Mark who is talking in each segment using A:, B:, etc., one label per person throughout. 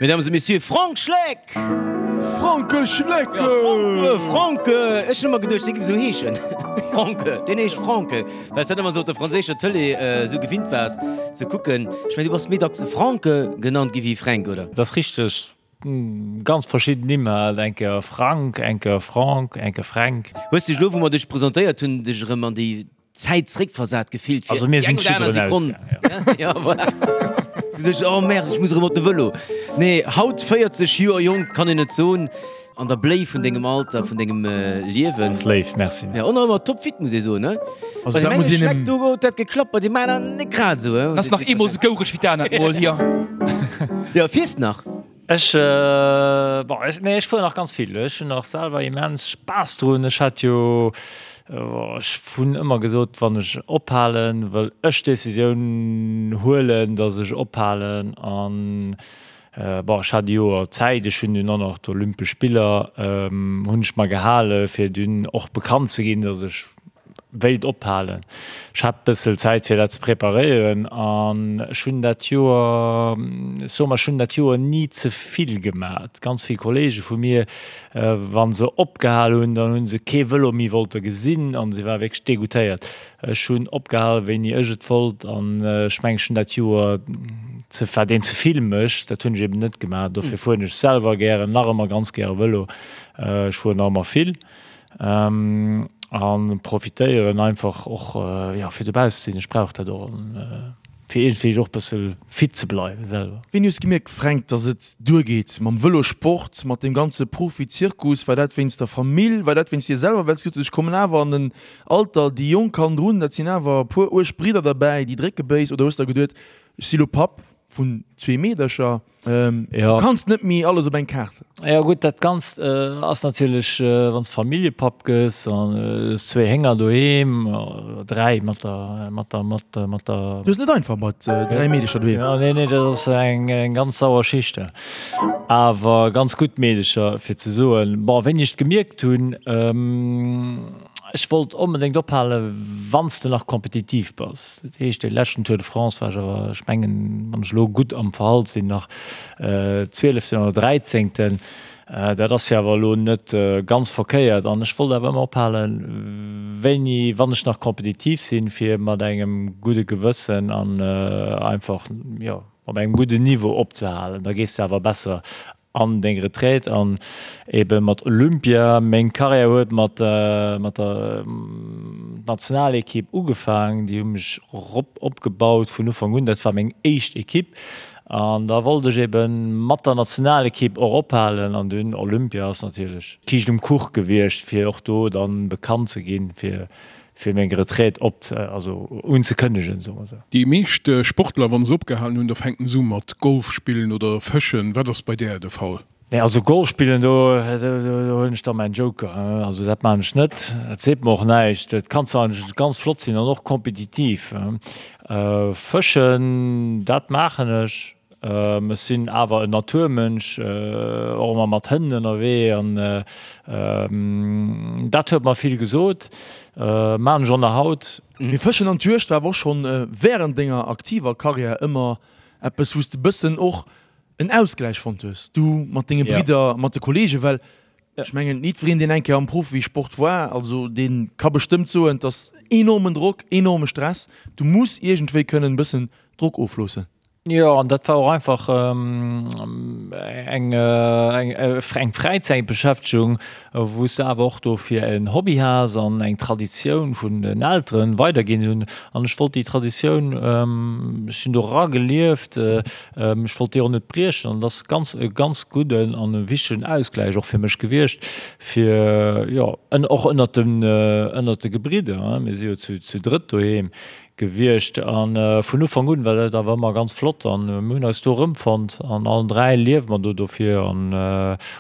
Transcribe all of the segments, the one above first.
A: Mesdames et Messieurs, Frank Schleck!
B: Franke Schleck!
A: Ja, Franke, Franke! Ech hunn ëmmer geduecht, dee géif esou heeschen. Franke, deen heescht Franke. Well s dat ëmmer esou op der franséischer Tëlee esou gewinnt waars ze kucken. Ech mengen, du bass méi dacks Franke genannt gi wéi Fränk, oder?
C: Dat ass richteg. Ganz verschidden Nimm halt, eng Kéier Frank, eng Kéier Franck, eng Kéier Fränk.
A: Hues dech elo, wou mer dech presentéiert hunn, dech erëm an déi Zäit zréckversat gefillt
C: fir déi eng oder aner Sekonn?
A: Ja, voilà. Sou dech, oh merde, ech muss erëm op de Vëlo. Nee, haut 40 Joer jonk, kann een et soen, an der Bléi vun dengem Alter, vun dengem Liewen.
C: Ass léif, merci.
A: Ja, och nach ëmmer topfit, muss ee soen, ne?
B: Also
A: Bei deem
B: dat muss
A: enge
B: een
A: Schleck,
B: em.
A: do huet dat geklappt, bei deem aneren net grad esou, he?
D: Ass nach eemol sou goureg wéi d'anert Mol hier.
A: Jo, fiers nach?
C: Ech, bon, ech, nee, ech fueren nach ganz vill. Ech hunn nach selwer immens Spaass drun. Ech hat jo, ech hunn ëmmer gesot, wann ech ophalen, wëll ech d'Decisioun huelen, datt ech ophalen. An, bon, ech hat e Joer Zäit. Ech hunn dunn och nach d'Olympesch Spiller hunn ech mer gehale fir dunn och bekannt ze ginn, datt ech wéilt ophalen. Ech hat bëssel Zäit fir dat ze preparéieren an ech hunn dat Joer, ech soe mar, ech hunn dat Joer ni ze vill gemat. Ganz vill Kollege vu mir, wa se opgehal hunn, dann hu se kee Vëlo méi wollte gesinn an se ware wierklech degoûtéiert. Ech hunn opgehal wéini ech et wollt an ech mengen ech hunn dat Joer ze, wat een ze vill mécht, dat hunn ech eben net gemaach. Dofir fueren ech selwer gären, nach ëmmer ganz gäre Vëlo. Ech fueren nach ëmmer vill. An profitéieren einfach och jo fir dobausse ze sinn. Ech brauch dat och an fir iergendwéi och bësse fit ze bleiwen selwer.
B: Wéini hues gemierkt Fränk, dass et duergeet mam Vëlosport, mat deem ganze Profizirkus? War dat wéinst der Famill, war dat wéinst dir selwer, well s gesot hues, ech kommen awer an en Alter, déi Jonk hannendrun, dat sinn awer e puer uerg Bridder derbäi, déi drécke béis, oder hues der geduet, ech si lo Papp vun zwee Meedercher? Du kanns net méi alles op eng Kaart.
C: Jo gutt, dat Ganzt ass natierlech, wann s de Familljepapp gëss an hues zwéi Hénger doheem, oder dräi mat der, mat der, mat der, mat der.
B: Du hues net einfach mat dräi Meedecher doheem.
C: Jo, nee, nee, dat ass eng ganz sauer Schicht. Awer ganz gutt Meedecher, fir ze soen. Bon, wéini ech et gemierkt hunn, Ech wollt onbedéngt ophalen, wann s de nach kompetitiv bass. Dat heescht, dee leschten Tour de France war ech awer, ech mengen, wann ech elo gutt am Verhalt sinn, nach Zwieleften oder Dräizéngten. Dat ass jo awer elo net ganz verkéiert. An ech wollt awer ëmmer ophalen, wéini, wann ech nach kompetitiv sinn, fir mat engem gudde Gewëssen an einfach, jo, op engem gudden Niveau opzehalen. Da gees de awer besser an deng Retraite an ebe mat Olympia. Meng Karriär huet mat mat der Nationalekipp ugefaang, déi hu mech rop opgebaut vun Ufank un, dat war meng éischt Ekipp an da wollt ech ebe mat der Nationalekipp och ophalen an dunn Olympia ass natierlech d'Kiischt um Kuch gewiescht fir och do dann bekannt ze ginn fir fir meng Retraite op, also unzekënnegen, soe mer esou.
E: Déi meescht Sportler, wa se opgehalen hunn, da fänken se u mat Golf spillen oder fëschen. Wat ass bei där de Fall?
C: Nee, also Golf spillen, do huelen ech da mäin Joker. Also dat maachen ech net. Dat seet mer och näischt. Dat kann zwar ganz flott sinn an och kompetitiv. Fëschen, dat maachen ech. Ech sinn awer en Naturmënsch, och ëmmer mat Hënn ënnerwee an dat huet mer vill gesot. Maan ech och nach haut.
B: Mee Fëschen an d'Juegd war awer och schonn wärend denger aktiver Karriär ëmmer eppes, wou s de bëssen och en Ausgläich fonnt hues, du mat denge Bridder, mat de Kollegen, well ech mengen, jiddwereen, deen eng Kéier am Profisport war, also dee ka bestëmmt soen, et ass enormen Drock, enorme Stress, du muss iergendwéi kënnen e bëssen Drock ofloossen.
C: Jo, an dat war och einfach eng eng Fräizäitbeschäftegung, wou s de awer och dofir en Hobby has an eng Traditioun vun den Elteren weiderginn hunn. An ech wollt déi Traditioun, ech sinn do eragelieft, ech wollt déi och net briechen. An dat ass ganz e ganz gudden an e wichtegen Ausgläich och fir mech gewiescht, fir jo och ënnert den ënnert de Gebridder, mir si jo zu drëtt doheem, Gewiescht an vun Ufank un war dat awer ëmmer ganz flott an mir hunn eis do erëmfonnt an allen 3 liewe mer do dofir an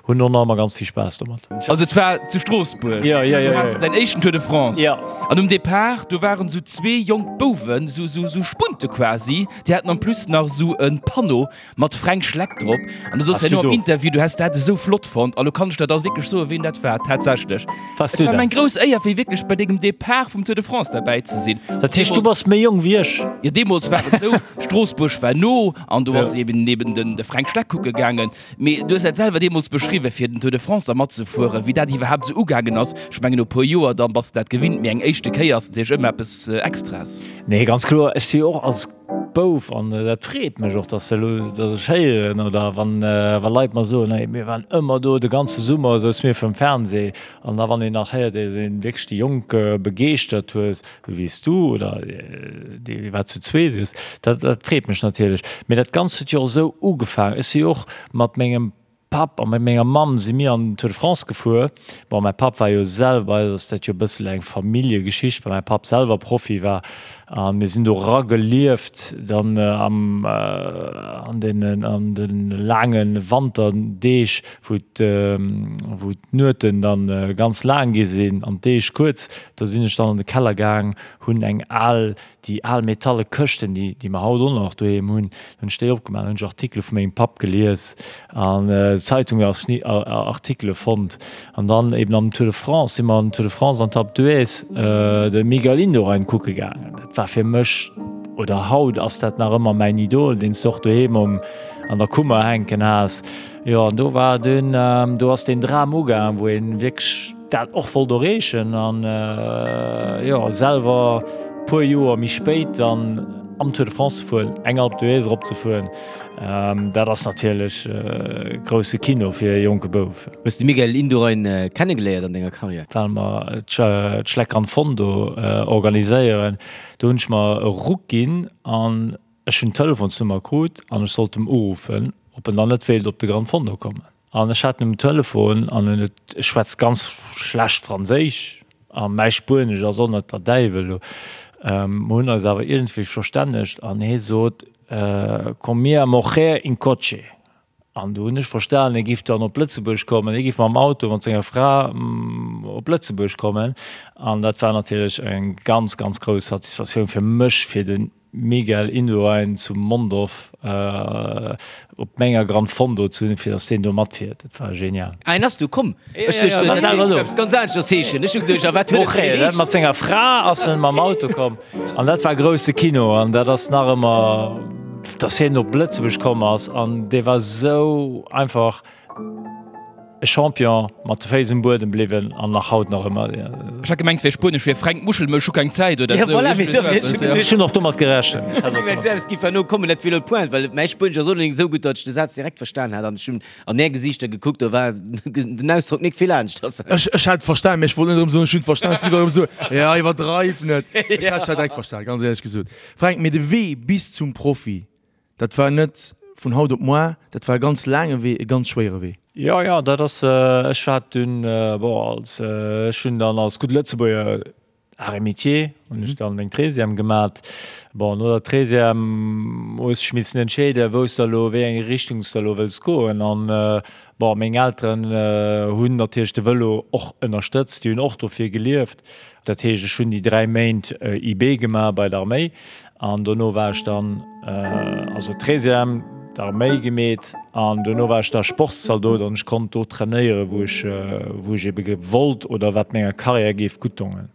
C: hunn och nach ëmmer ganz vill Spaass domat.
D: Also et war zu Stroossbuerg, du has däin éischten Tour de France an um Depart do waren sou zwee jonk Bouwen, sou Spunte quasi, déi haten en plus nach sou e Panneau Mat Fränk Schleck drop. An du soss herno am Interview, du häss dat esou flott fonnt. A lo kann ech der da wierklech soen, ween dat war, tatsächlech.
C: Wars
D: Et
C: du
D: war
C: dat?
D: meng grouss Éier, fir wierklech bei dengem Depart vum Tour de France derbäi ze sinn.
C: Dat heescht, du bass. ass méi jonk wéi ech.
D: Jo, deemools war et esou, Stroossbuerg war no an do ass eben eben den de Fränk Schleck kucke gaangen. Mee du hues dat selwer deemools beschriwwen, fir den Tour de France da matzefueren, wéi dat iwwerhaapt esou ugaangen ass. Ech mengen, no e puer Joer, da bass de dat gewinnt, mee eng éischte Kéier ass natierlech ëmmer eppes Extraes.
C: Nee, ganz kloer. Ech si jo och als Bouf, an dat freet mech och, dass elo, dass ech héieren oder wann, wa Leit mer soen, hey, mir waren ëmmer do, de ganze Summer souze mir virum Fernseh. An da wann een nach héiert, dass een wierklech déi Jonk begeeschtert huet, esou wéi s du oder déi wat zu zwee sidd, dat, dat freet mech natierlech. Mee dat Ganzt huet jo och esou ugefaangen. Ech si jo och mat mengem Papp a mat menger Mamm si mir an den Tour de France gefuer. Bon, mäi Papp war jo selwer, bei eis ass dat jo e bëssel eng Familljegeschicht, well mäi Papp selwer Profi war. A mir sinn do eragelieft dann am, an deenen, an de laange Wanterdeeg, wou wou d'Nueten dann ganz laang gi sinn an d'Deeg kuerz. Do sinn ech dann an de Keller gaang, hunn eng al Déi al metalle Këschten, déi, déi mer haut och nach doheem hunn, hunn ech déi opgemaach, hunn ech Artikele vu mengem Papp gelies an Zeitungsartikele fonnt. An dann eben am Tour de France si mer an den Tour de France an d'Alpe d'Huez de Miguel Indurain kucke gaangen. Dat war fir mech, oder haut ass dat nach ëmmer mäin Idol, deen s de och doheem um, an der Kummer hänken has. Jo, an do war dunn, do ass deen Dram ugaang, wou een wierklech, dat och wollt erreechen an jo selwer puer Joer méi spéit dann am Tour de France ze fueren, eng Alpe d'Huez erop ze fueren, dat ass natierlech grousse Kino fir e jonke Bouf.
A: Hues de Miguel Indurain kennegeléiert an denger Karriär?
C: Well mer d'Schleck Gran Fondo organiséieren, do hunn ech mer e Ruck ginn an ech hunn d'Telefonsnummer krut an ech sollt em uruffen, ob en dann net wéilt op de Gran Fondo kommen. An ech hat en um Telefon an en huet, ech schwätz ganz schlecht Franséisch a mäi Spuenesch ass och net der Däiwel elo, mer hunn eis awer iergendwéi verstännegt an hie sot, Con mia mujer in coche. An do hunn ech verstanen, hie giff dann op Lëtzebuerg kommen, hie giff mam Auto mat senger Fra op Lëtzebuerg kommen. An dat war natierlech eng ganz, ganz grouss Satisfaktioun fir mech, fir den Miguel Indurain zu Mondorf op menger Gran Fondo ze hunn, fir dass deen do matfiert. Dat war genial.
A: Ah, en ass du komm? Ech duecht, dat géif eppes ganz aneschters heeschen. Ech hu geduecht, a wat huet et fir
C: geheescht? Mat senger Fra ass en mam Auto komm an dat war grousse Kino an dat ass nach ëmmer, dass hien op Lëtzebuerg komm ass an dee war sou einfach. E Champion, mat de Féiss um Buedem bliwwen an nach haut nach ëmmer.
D: Ech hat gemengt wär spuenesch fir Fränk Muschel, mä ech hu keng Zäit oder
A: esou. Voilà, mee dofir ech hu geduecht.
C: Ech hunn och domat gerechent.
A: Ech hu gemengt, esou eppes giff herno kommen, dat wier elo d'Pointe, well mäi Spuenesch ass och net esou gutt, datt ech de Saz direkt verstan hat an ech hunn an är Gesiichter gekuckt, do war den Ausdrock nik vill aneschters.
B: Ech ech hat et verstan, mee ech wollt net erëm soen, ech hunn et verstan, ech si erëm esou, jo, iwwerdreif net. Ech hat et zwar direkt verstan, ganz éierlech gesot. Fränk, mee de Wee bis zum Profi, Dat war net vun haut op moar, dat war e ganz laange Wee, e ganz schwéiere Wee.
C: Jo, jo, dat ass, ech war dunn, bon, als, ech hunn dann als gudde Lëtzebuerger Arts et Métiers hunn ech dann meng Treizième gemat. Bon, no der Treizième hues dech missen entscheeden, wou s de elo, wéi eng Richtung s de elo wëlls goen. An, bon, meng Elteren hunn natierlech de Vëlo och ënnerstëtzt, déi hunn och dofir gelieft. Dat heescht, ech hunn déi 3 Méint IB gemaach bei der Arméi an dono war ech dann, also Treizième, d'Arméi gemeet an dono war ech da Sportszaldot an ech konnt do trainéieren, wou ech, wou ech ebe wollt oder wat menger Karriär géif gutt dongen.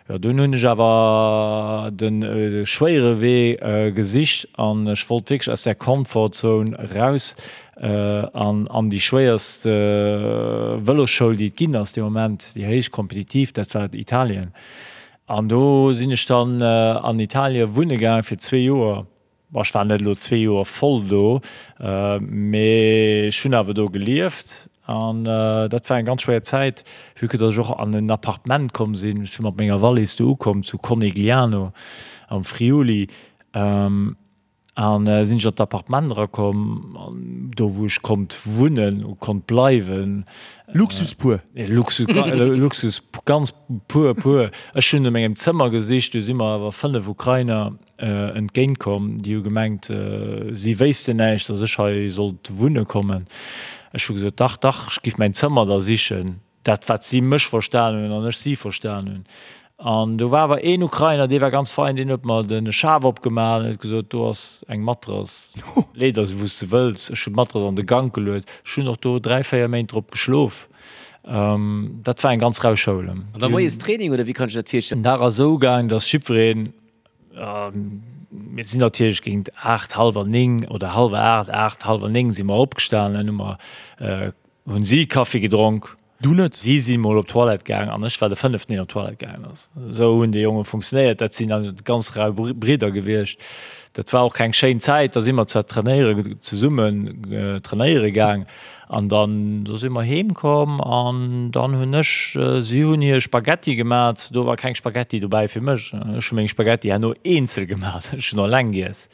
C: Jo, dunn hunn ech awer de schwéiere Wee gesicht an ech wollt wierklech aus där Comfort-Zone raus an an déi schwéierst Vëlosschoul, déi et ginn ass dee Moment, déi héich kompetitiv, dat war Italien. An do sinn ech dann an Italie wunne gaangen fir zwee Joer. Bon, ech war net elo zwee Joer voll do, mee ech hunn awer do gelieft an dat war eng ganz schwéier Zäit, vue que datt ech och an en Appartement komm sinn. Ech si mat menger Wallis do ukomm zu Conegliano am Friuli an sinn ech an d'Appartement erakomm, do wou ech konnt wunnen, konnt bleiwen.
B: Luxus pur.
C: Luxus, Luxus ganz pur, pur. Ech hunn no mengem Zëmmer gesicht, do si mer awer 5 Ukrainer entgéint komm, déi hu gemengt, si wéissten näischt, datt ech hei sollt wunne kommen. Ech hu gesot, dach, dach, ech giff mäin Zëmmer da sichen, dat wat si mech verstan hunn an ech si verstan hunn. An do war awer een Ukrainer, dee war ganz fein, deen huet mer de Schaf opgemaach an huet gesot, do ass eng Matrass, lee der se wou s de wëlls. Ech hunn d'Matrass an de Gank geluet, ech hunn och do 3, 4 Méint drop geschlof. Dat war eng ganz rau Schoul.
A: An da moies Training oder wéi kann ech dat virstellen?
C: Den Dag ass esou gaang, datt jiddwereen. Mir sinn natierlech géint 8, hallwer 9 oder hallwer 8, 8, hallwer 9 si mer opgestanen, hu mer, hunn si Kaffi gedronk.
B: Du net?
C: Si si mol op d'Toilette gaang an ech war de fënneften, deen op d'Toilette gaangen ass. Esou hunn déi Jonge funktionéiert. Dat sinn dann ganz rau Bridder gewiescht. Dat war och keng schéin Zäit. Da si mer zwar trainéiere zesummen trainéiere gaang an dann do si mer heem komm an dann hunn ech, si hunn hir Spaghetti gemat. Do war keng Spaghetti dobäi fir mech. Ech hu meng Spaghetti herno eenzel gemat. Ech hunn eleng giess.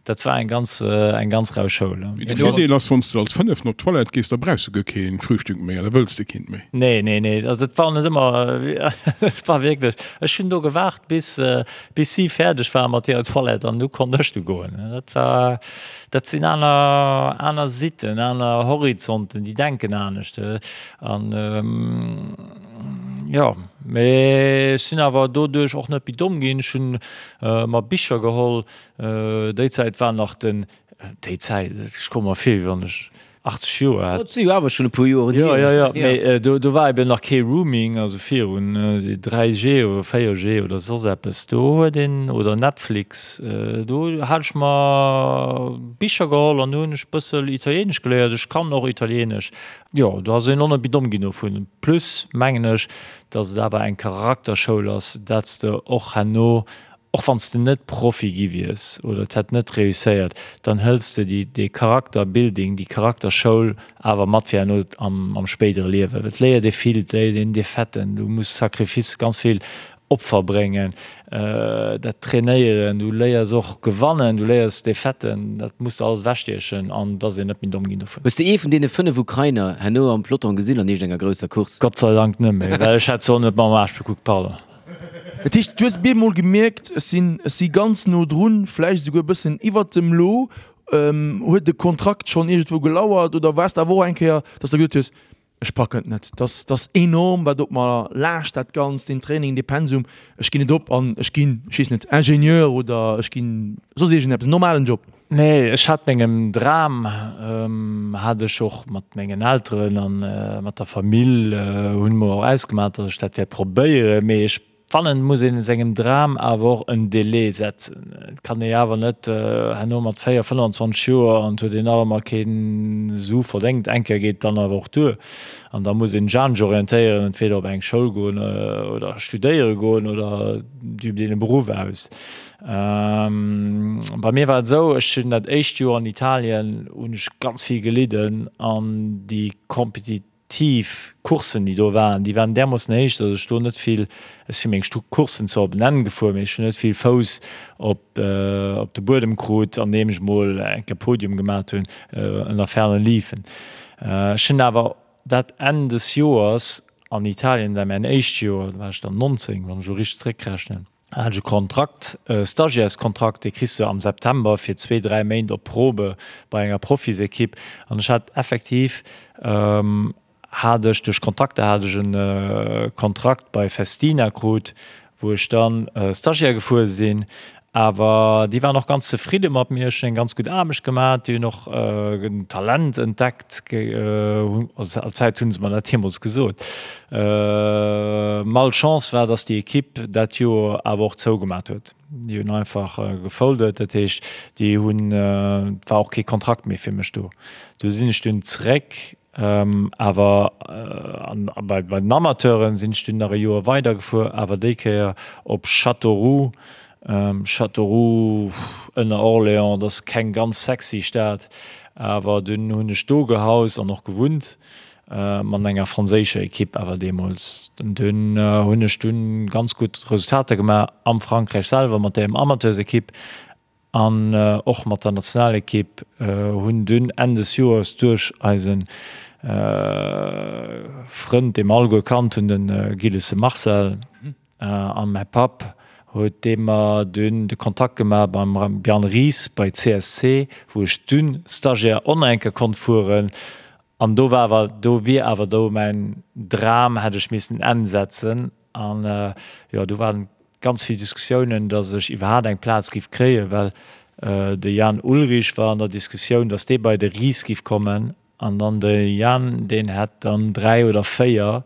C: Dat war eng ganz, eng ganz rau Schoul.
E: Mee de Virdeel ass, wann s de als Fënneften op d'Toilette gees, da brauchs du guer kee Frühstück méi an da wëlls de keent méi.
C: Nee, nee, nee, also et war net ëmmer, et war wierklech, ech hunn do gewaart, bis, bis si fäerdeg ware mat hirer Toilette an du konnt ech du goen. Dat war, dat sinn aner, aner Sitten, aner Horizonten, déi denken anescht an, jo, mee ech sinn awer doduerch och net méi domm ginn. Ech hunn mer Bicher geholl, Déi Zäit war nach den, déi Zäit, ech komme mer vir, wéi wann ech 80 Joer hätt.
A: Dat si jo awer schonn e puer Joren
C: hier. Jo, jo, jo, mee do, do war eben nach kee Rooming, also virun 3G oder 4G oder soss eppes. Do huet een, oder Netflix, do hat ech mer Bicher geholl an do hunn ech e bëssel Italienesch geléiert. Ech kann och Italienesch. Jo, do ass een och net méi domm ginn dovun. Plus mengen ech, datt et awer eng Charakterschoul ass, dat s de och herno Och wann s de net Profi gi wiers oder et hätt net reusséiert, dann hëls de déi, dee Charakterbuilding, déi Charakterschoul awer mat fir herno am, am spéidere Liewen. Et léiert ee vill, et léiert een Defaiten, du muss Sacrifice, ganz vill Opfer bréngen, dat trainéieren, du léiers och gewannen, du léiers Defaiten, dat muss de alles ewechstiechen an et ass een net méi domm ginn dovun.
A: Hues de ee vun deene 5 Ukrainer herno am Peloton gesinn an iergendenger grousser Course?
C: Gott sei Dank net méi, well ech hätt se och net mam Aarsch bekuckt, pardon.
B: Dat heescht, du hues bemol gemierkt, ech sinn, ech si ganz no drun, vläicht esouguer e bëssen iwwert dem Lo. Huet de Kontrakt schonn iergendwou gelauert oder waars de awer och eng Kéier, dass de gesot hues, ech packen et net, dass dass enorm, wat op mer laascht, dat Ganzt, deen Training, dee Pensum, ech ginn et op an ech ginn, ech weess net, Ingenieur oder ech ginn soss iergendeppes, en normalen Job?
C: Nee, ech hat mengem Dram, hat ech och mat mengen Elteren an mat der Famill hunn mer och ausgemaach, datt ech dat wäert probéieren. Mee ech fannen, et muss een sengem Dram awer och en Délai setzen. Et kann ee awer net herno mat 4, 25 Joer an et huet een nach ëmmer keen Su verdéngt. Eng Kéier geet et dann awer och duer an da muss een sech anescht orientéieren, entweder op eng Schoul goen oder studéiere goen oder et übt een e Beruff aus. Bei mir war et esou, ech hunn dat éischt Joer an Italien hunn ech ganz vill gelidden an déi kompetitiv Courssen déi do waren, déi waren därmoossen héich, datt ech do net vill, ech si meng Courssen zwar op en Enn gefuer, mee ech hunn net vill Fouss op op de Buedem krut, andeem ech mol eng Kéier Podium gemat hunn ënner fernen liefen. Ech hunn awer dat Enn des Joers an Italien, dat war mäin éischt Joer, do war ech dann 19, wann ech elo richteg zréckrechnen, Hat ech e Kontrakt, e Stagiaireskontrakt, dee kriss de am September fir zwee, dräi Méint op Probe bei enger Profisekipp. An ech hat effektiv, hat ech duerch Kontakter hat ech e Kontrakt bei Festina krut, wou ech dann Stagiaire gefuer sinn. Awer déi waren och ganz zefridde mat mir. Ech hunn eng ganz gutt Aarbecht gemaach. Déi hunn och en Talent entdeckt. All Zäit hu se mer dat deemools gesot. Malchance war, dass déi Ekipp dat Joer awer och zougemat huet. Déi hunn einfach gefoldet. Dat heescht, déi hunn, et war och kee Kontrakt méi fir mech do. Du sinn ech dunn zeréck, awer bei den Amateuren sinn ech dunn nach e Joer weidergefuer, awer déi Kéier op Châteauroux. Châteauroux ënner Orléans, dat ass keng ganz sexy Stad, awer dunn hunn ech do gehaust an och gewunnt, mat enger franséischer Ekipp awer deemools. Dunn hunn ech dunn ganz gutt Resultater gemaach am Frankräich selwer mat där Amateursekipp an och mat der Nationalekipp. Hunn dunn Enn des Joers duerch eise Frënd, dee mer alleguer kannt hunn, de Gillesse Marcel, a mäi Papp huet dee mer dunn de Kontakt gemaach beim Bjarne Ries bei CSC, wou ech dunn Stagiaire och nach eng Kéier konnt fueren. An do war awer, do wier awer do mäin Dram, hätt ech missen en Enn setzen. An jo, do waren ganz vill Diskussiounen, datt ech iwwerhaapt eng Plaz giff kréien, well de Jan Ullrich war an der Diskussioun, datt dee bei de Ries giff kommen. An dann de Jan, deen hätt dann 3 oder 4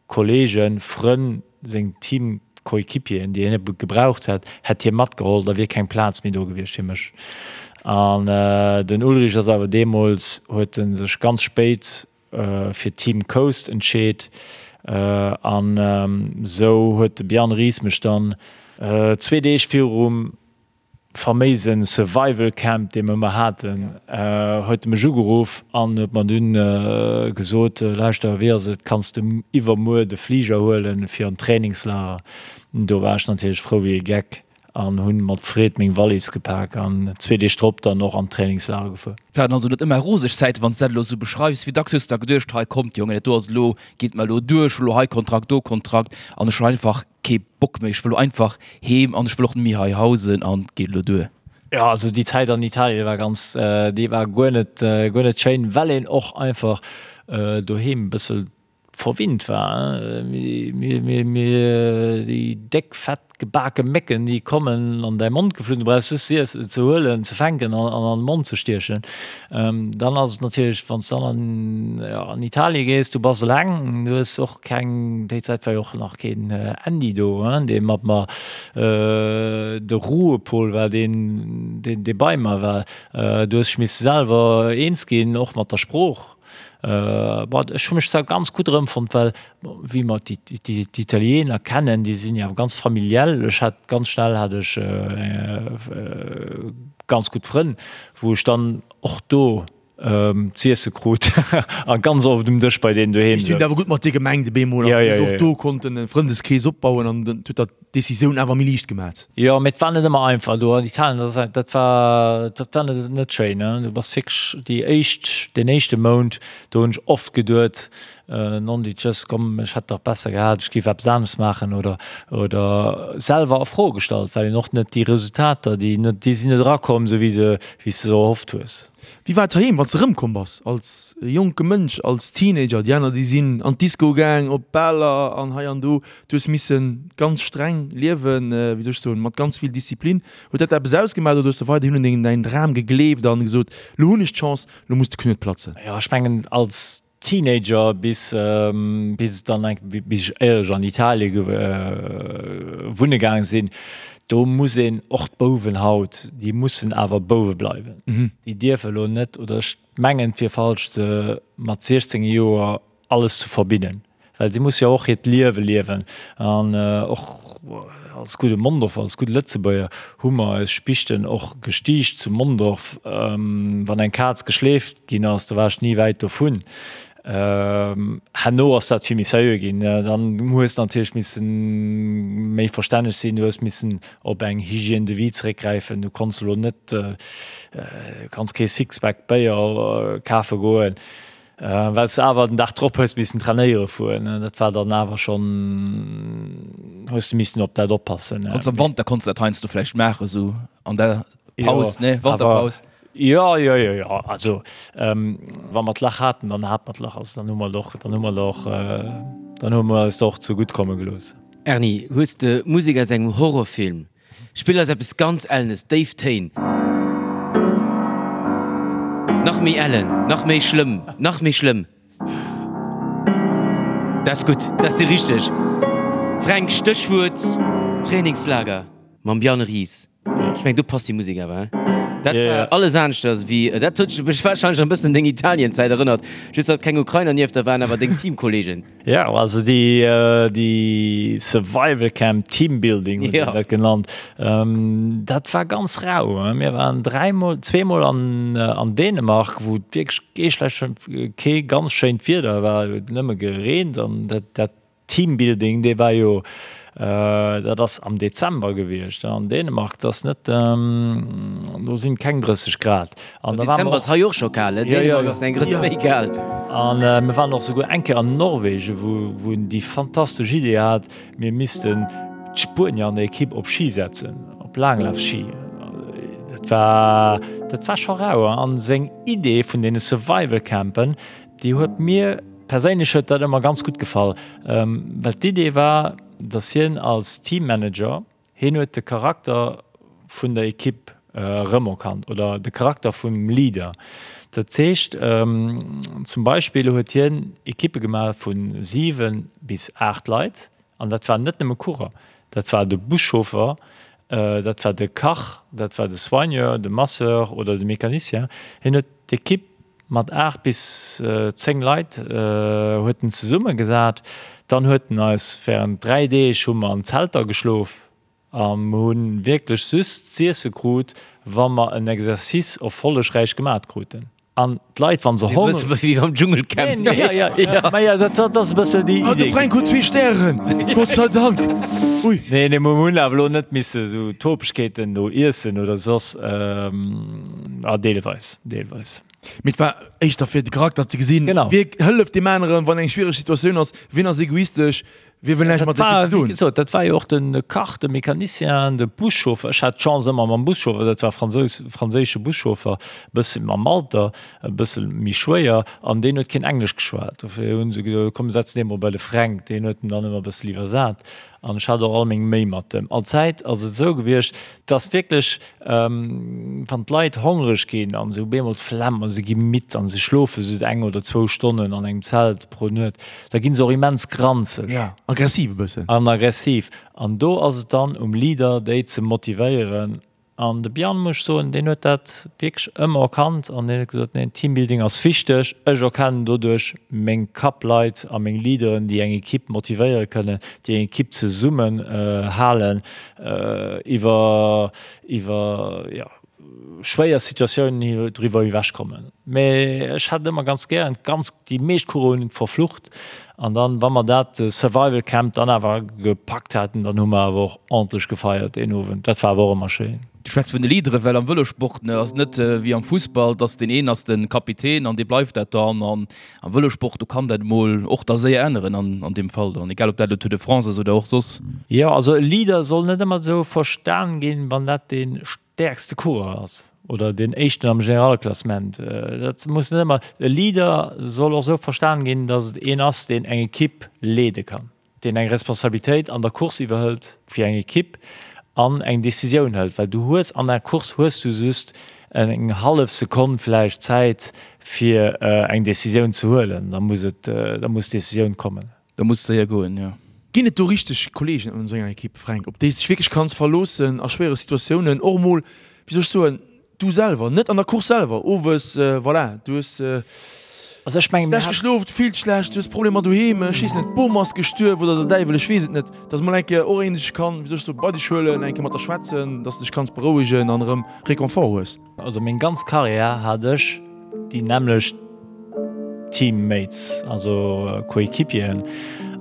C: Kollegen, Frënn, seng Teamkollegen. Coéquipieren, déi hien gebraucht hätt, hätt hie matgeholl, da wier keng Plaz méi do gewiescht fir mech. An den Ullrich ass awer deemools, huet e sech ganz spéit fir Team Coast entscheet an esou huet de Bjarne Riis mech dann zwee Deeg virum faméisen Survival Camp, dee mer ëmmer haten, huet e mech ugeruff an huet mer dunn gesot, Lauschter, wéi ass et, kanns de iwwermuer de Fliger huelen fir an d'Trainingslager? Do war ech natierlech frou wéi e Geck an hunn mat Freed meng Wallis gepak an zwee Deeg drop dann och an d'Trainingslager gefuer.
D: Waren also net ëmmer roseg Zäiten, wann s de dat elo esou beschreifs. Wéi dacks hues de da geduecht, hei kommt Jongen, dat do ass elo, geet mer elo duer, ech hu elo hei Kontrakt, do Kontrakt an ech hunn einfach kee Bock méi, ech wëll elo einfach heem an ech wëll och net méi hei hausen an et geet elo duer.
C: Jo, also déi Zäit an Italien war ganz, déi war guer net, guer net schéin, well een och einfach doheem e bëssel verwinnt war. Mir, déi déck, fett, gebake Mécken, déi kommen an däi Mond geflunn, du brauchs just se ze huelen, ze fänken an an de Mond ze stiechen. Dann ass et natierlech, wann s de dann an Italie gees, du bass eleng, du hues och keng, déi Zäit war jo och nach keen Andy do, dee mat mer, de Ruhepol war deen, dee bei mer war. Du hues dech misse selwer eens ginn, och mat der Sprooch. Bon, ech hu mech zwar ganz gutt erëmfonnt, well wéi mer d'Italiener kennen, déi sinn jo awer ganz familiell. Ech hat ganz schnell hat ech ganz gutt Frënn, wou ech dann och do z'iesse krut a ganz oft um Dësch bei deenen doheem
B: Déi hunn et awer gutt mat dir gemengt op eemol an du hues och do konnten e Frëndeskrees opbauen an dat huet der d'Decisioun awer méi liicht gemat.
C: Jo, mee et war net ëmmer einfach do an Italien, dat ass, dat war, dat war net, net schéin, ne. Du bass wierklech déi éischt, deen éischte Mount, do hunn ech oft geduet, nondidjëss, komm, ech hätt dach besser gehat, ech géif eppes anescht maachen oder, oder selwer a Fro gestallt, well een och net déi Resultater, déi net, déi sinn net erakomm, esou wéi se, wéi s de se erhofft hues.
B: Wéi war et heiheem, wann s de erëmkomm bass als jonke Mënsch, als Teenager? Déi aner, déi sinn an d'Disco gaang, op Baler an hei an do. Du hues misse ganz streng liewen, wéi soll ech soen, mat ganz vill Disziplin. Huet dat eppes ausgemaach oder hues de weiderhin un deng, däin Dram gegleeft an gesot, lo hunn ech d'Chance, lo muss de Knuet platzen?
C: Jo, ech mengen als Teenager bis, bis et dann eng, bis ech éierlech an Italie wunne gaang sinn, do muss een och d'Bouwen haut, déi mussen awer Bouwe bleiwen. Déi dierfe lo net, oder ech mengen et wier falsch se mat 16 Joer alles ze verbinnen, well si musse jo och hiert Liewe liewen. An och als gudde Mondorfer, als gudde Lëtzebuerger hu mer eis Spichten och gestiicht zu Mondorf. Wann eng Kaz geschleeft ginn ass, do war ech ni wäit dovun. Herno ass dat vill méi seriö ginn. Dann hues de natierlech misse méi verstänneg sinn, du hues missen op eng Hygiène de vie zeréckgräifen. Du konns elo net, du kanns kee Sixpack Béier kafe goen. Well s de awer den Dag drop hues missen trainéiere fueren, dat war dann awer schonn, hues de missen op dat oppassen.
D: Konns am Wanter konns de dat heiansdo vläicht maachen, esou an der Paus, ne, Wanterpaus?
C: Jo, jo, jo, jo, also wa mer d'Lach haten, dann hate mer d'Lach, also dann hu mer et och, dann hu mer et och, dann hu mer eis och zegutt komme gelooss.
A: Erny, hues de Musek aus engem Horrorfilm Spill eis eppes ganz Ellenes, déif Téin. Nach méi ellen, nach méi schlëmm, nach méi schlëmm. Dat ass gutt, dat ass déi richteg. Fränk, Stéchwuert Trainingslager mam Bjarne Ries. Ech mengen, do passt déi Musek awer, hein? Dat war alles aneschters wéi, dat huet mech warscheinlech e bëssen un deng Italienzäit erënnert, just datt keng Ukrainer nieft der waren, awer deng Teamkolleegen.
C: Jo, also déi déi Survival Camp, Teambuilding huet een dat genannt, dat war ganz rau. Mir waren dräimol, zweemol an an Dänemark, wou et wierklech kee schlecht, kee ganz schéint Wieder war, et huet nëmme gereent an dat dat Teambuilding, dee war jo Dat ass am Dezember gewiescht an Dänemark, dat ass net, do sinn keng 30 Grad.
A: An da waren mer och. Dezember ass hei och scho kal, Dänemark ass eng Grëtz méi kal.
C: An mir waren och souguer eng Kéier an Norwegen, wou wou en déi fantastesch Idee hat, mir missten d'Spuenier an der Ekipp op Ski setzen, op Laanglafsski. Dat war, dat war scho rau. An seng Idee vun deene Survival Campen, Déi huet mir perséinlech huet dat ëmmer ganz gutt gefall, well d'Idee war, datt hien als Teammanager, hien huet de Charakter vun der Ekipp erëmerkannt oder de Charakter vum Leader. Dat heescht, zum Beispill huet hien Ekippe gemaach vu 7 bis 8 Leit an dat waren net nëmme Coureur. Dat war de Buschauffer, dat war de Kach, dat war de Soigneur, de Masseur oder de Mécanicien. Hien huet d'Ekipp mat 8 bis 10 Leit huet en zesummegesat. Dann huet en eis während 3 Deeg hu mer an Zelter geschlof a mer hu wierklech just z'iesse krut, wa mer en Exercice erfollegräich gemat kruten. An d'Leit, wa se
A: Honger. E bësse wéi am Dschungelcamp.
C: Ja, ja, ja, ma ja, dat, dat ass e bësse déi
B: Idee. De Fränk huet zwee Stären, Gott sei Dank.
C: Ui. Nee, nee, mer hunn awer elo net misse sou Topegkeeten do iessen oder soss. Ah, deelweis, deelweis.
B: Mee et war éischter fir de Charakter ze gesinn.
C: Genau.
B: Wie hëlleft deem aneren, wann eng schwiereg Situatioun ass, wien ass egoistesch, Wie wëll näischt mat der Ekipp ze
C: doen? Wéi gesot, dat war jo och de Kach, de Mecanicien, de Buschauffer. Ech hat d'Chance ëmmer mam Buschauffer, dat war Fransous, franséische Buschauffer, e bësse mam Alter, e bësse méi schwéier, an deen huet keen Englesch geschwat. Dofir hu se gesot, komm setz dee mol bei de Fränk, deen huet en dann ëmmer e bësse iwwersat. An ech hat och all meng Méi mat em. Allzäit ass et esou gewiescht, dass wierklech, Wann d'Leit hongreg ginn an se hu bemol d'Flemm a se gi midd an se schlofe just eng oder zwou Stonnen an engem Zelt pro Nuet, da gi se och immens granzeg.
B: Ja, aggressiv e bëssen.
C: An aggressiv. An do ass et dann um Leader, déi ze motivéieren. An de Bjarne, muss ech soen, deen huet dat wierklech ëmmer erkannt an deen huet gesot, neen, Teambuilding ass wichteg, ech erkennen doduerch meng Kapp-Leit a meng Leaderen, déi eng Ekipp motivéiere kënnen, déi eng Ekipp zesummen halen. iwwer iwwer jo schwéier Situatiounen driwwer ewech kommen. Mee ech hat ëmmer ganz gären ganz déi meescht Coursen hunn verflucht an dann wa mer dat Survival Camp dann awer gepackt haten, dann hu mer awer och ordentlech gefeiert deen Owend. Dat war awer och ëmmer schéin.
D: Du schwätz vun de Leaderen, well am Vëlosport ne ass et net wéi am Fussball, dass deen een ass de Kapitän an dee bleift dat dann an Am Vëlosport, do kann dat emol och da séier änneren an an deem Fall dann, egal ob dat elo Tour de France ass oder och soss.
C: Jo, also e Leader soll net ëmmer esou verstan ginn, wann dat dee stäerkste Coureur ass oder deen éischten am Generalklassement. Dat muss net ëmmer, e Leader soll och esou verstan ginn, datt et een ass, deen eng Ekipp leede kann. deen eng Responsabilitéit an der Course iwwerhëlt fir eng Ekipp an eng Decisioun hëlt, well du hues an der Course hues du just eng hallef Sekonn vläicht Zäit fir eng Decisioun ze huelen, da muss et, da muss d'Decisioun kommen.
D: Da muss et séier goen, jo.
B: Ginn et do richteg Kolleegen an esou enger Ekipp, Fränk, op déi s dech wierklech kanns verloossen a schwéiere Situatiounen, och emol, wéi soll ech soen, Du selwer, net an der Course selwer, owes, voilà, du hues
C: Also ech mengen, mir
B: schlecht hat. geschlof, du fills dech schlecht, du hues Problemer doheem, ech weess net, d'Bom ass gestuerf oder der Däiwel, ech weess et net, dass mol eng Kéier och een dech kann, wéi soll ech soen, bei dech huelen, eng Kéier mat der schwätzen, dass de dech kanns berouegen an erëm Réconfort hues.
C: Also meng ganz Karriär hat ech déi nämmlecht Teammates, also Coéquipieren,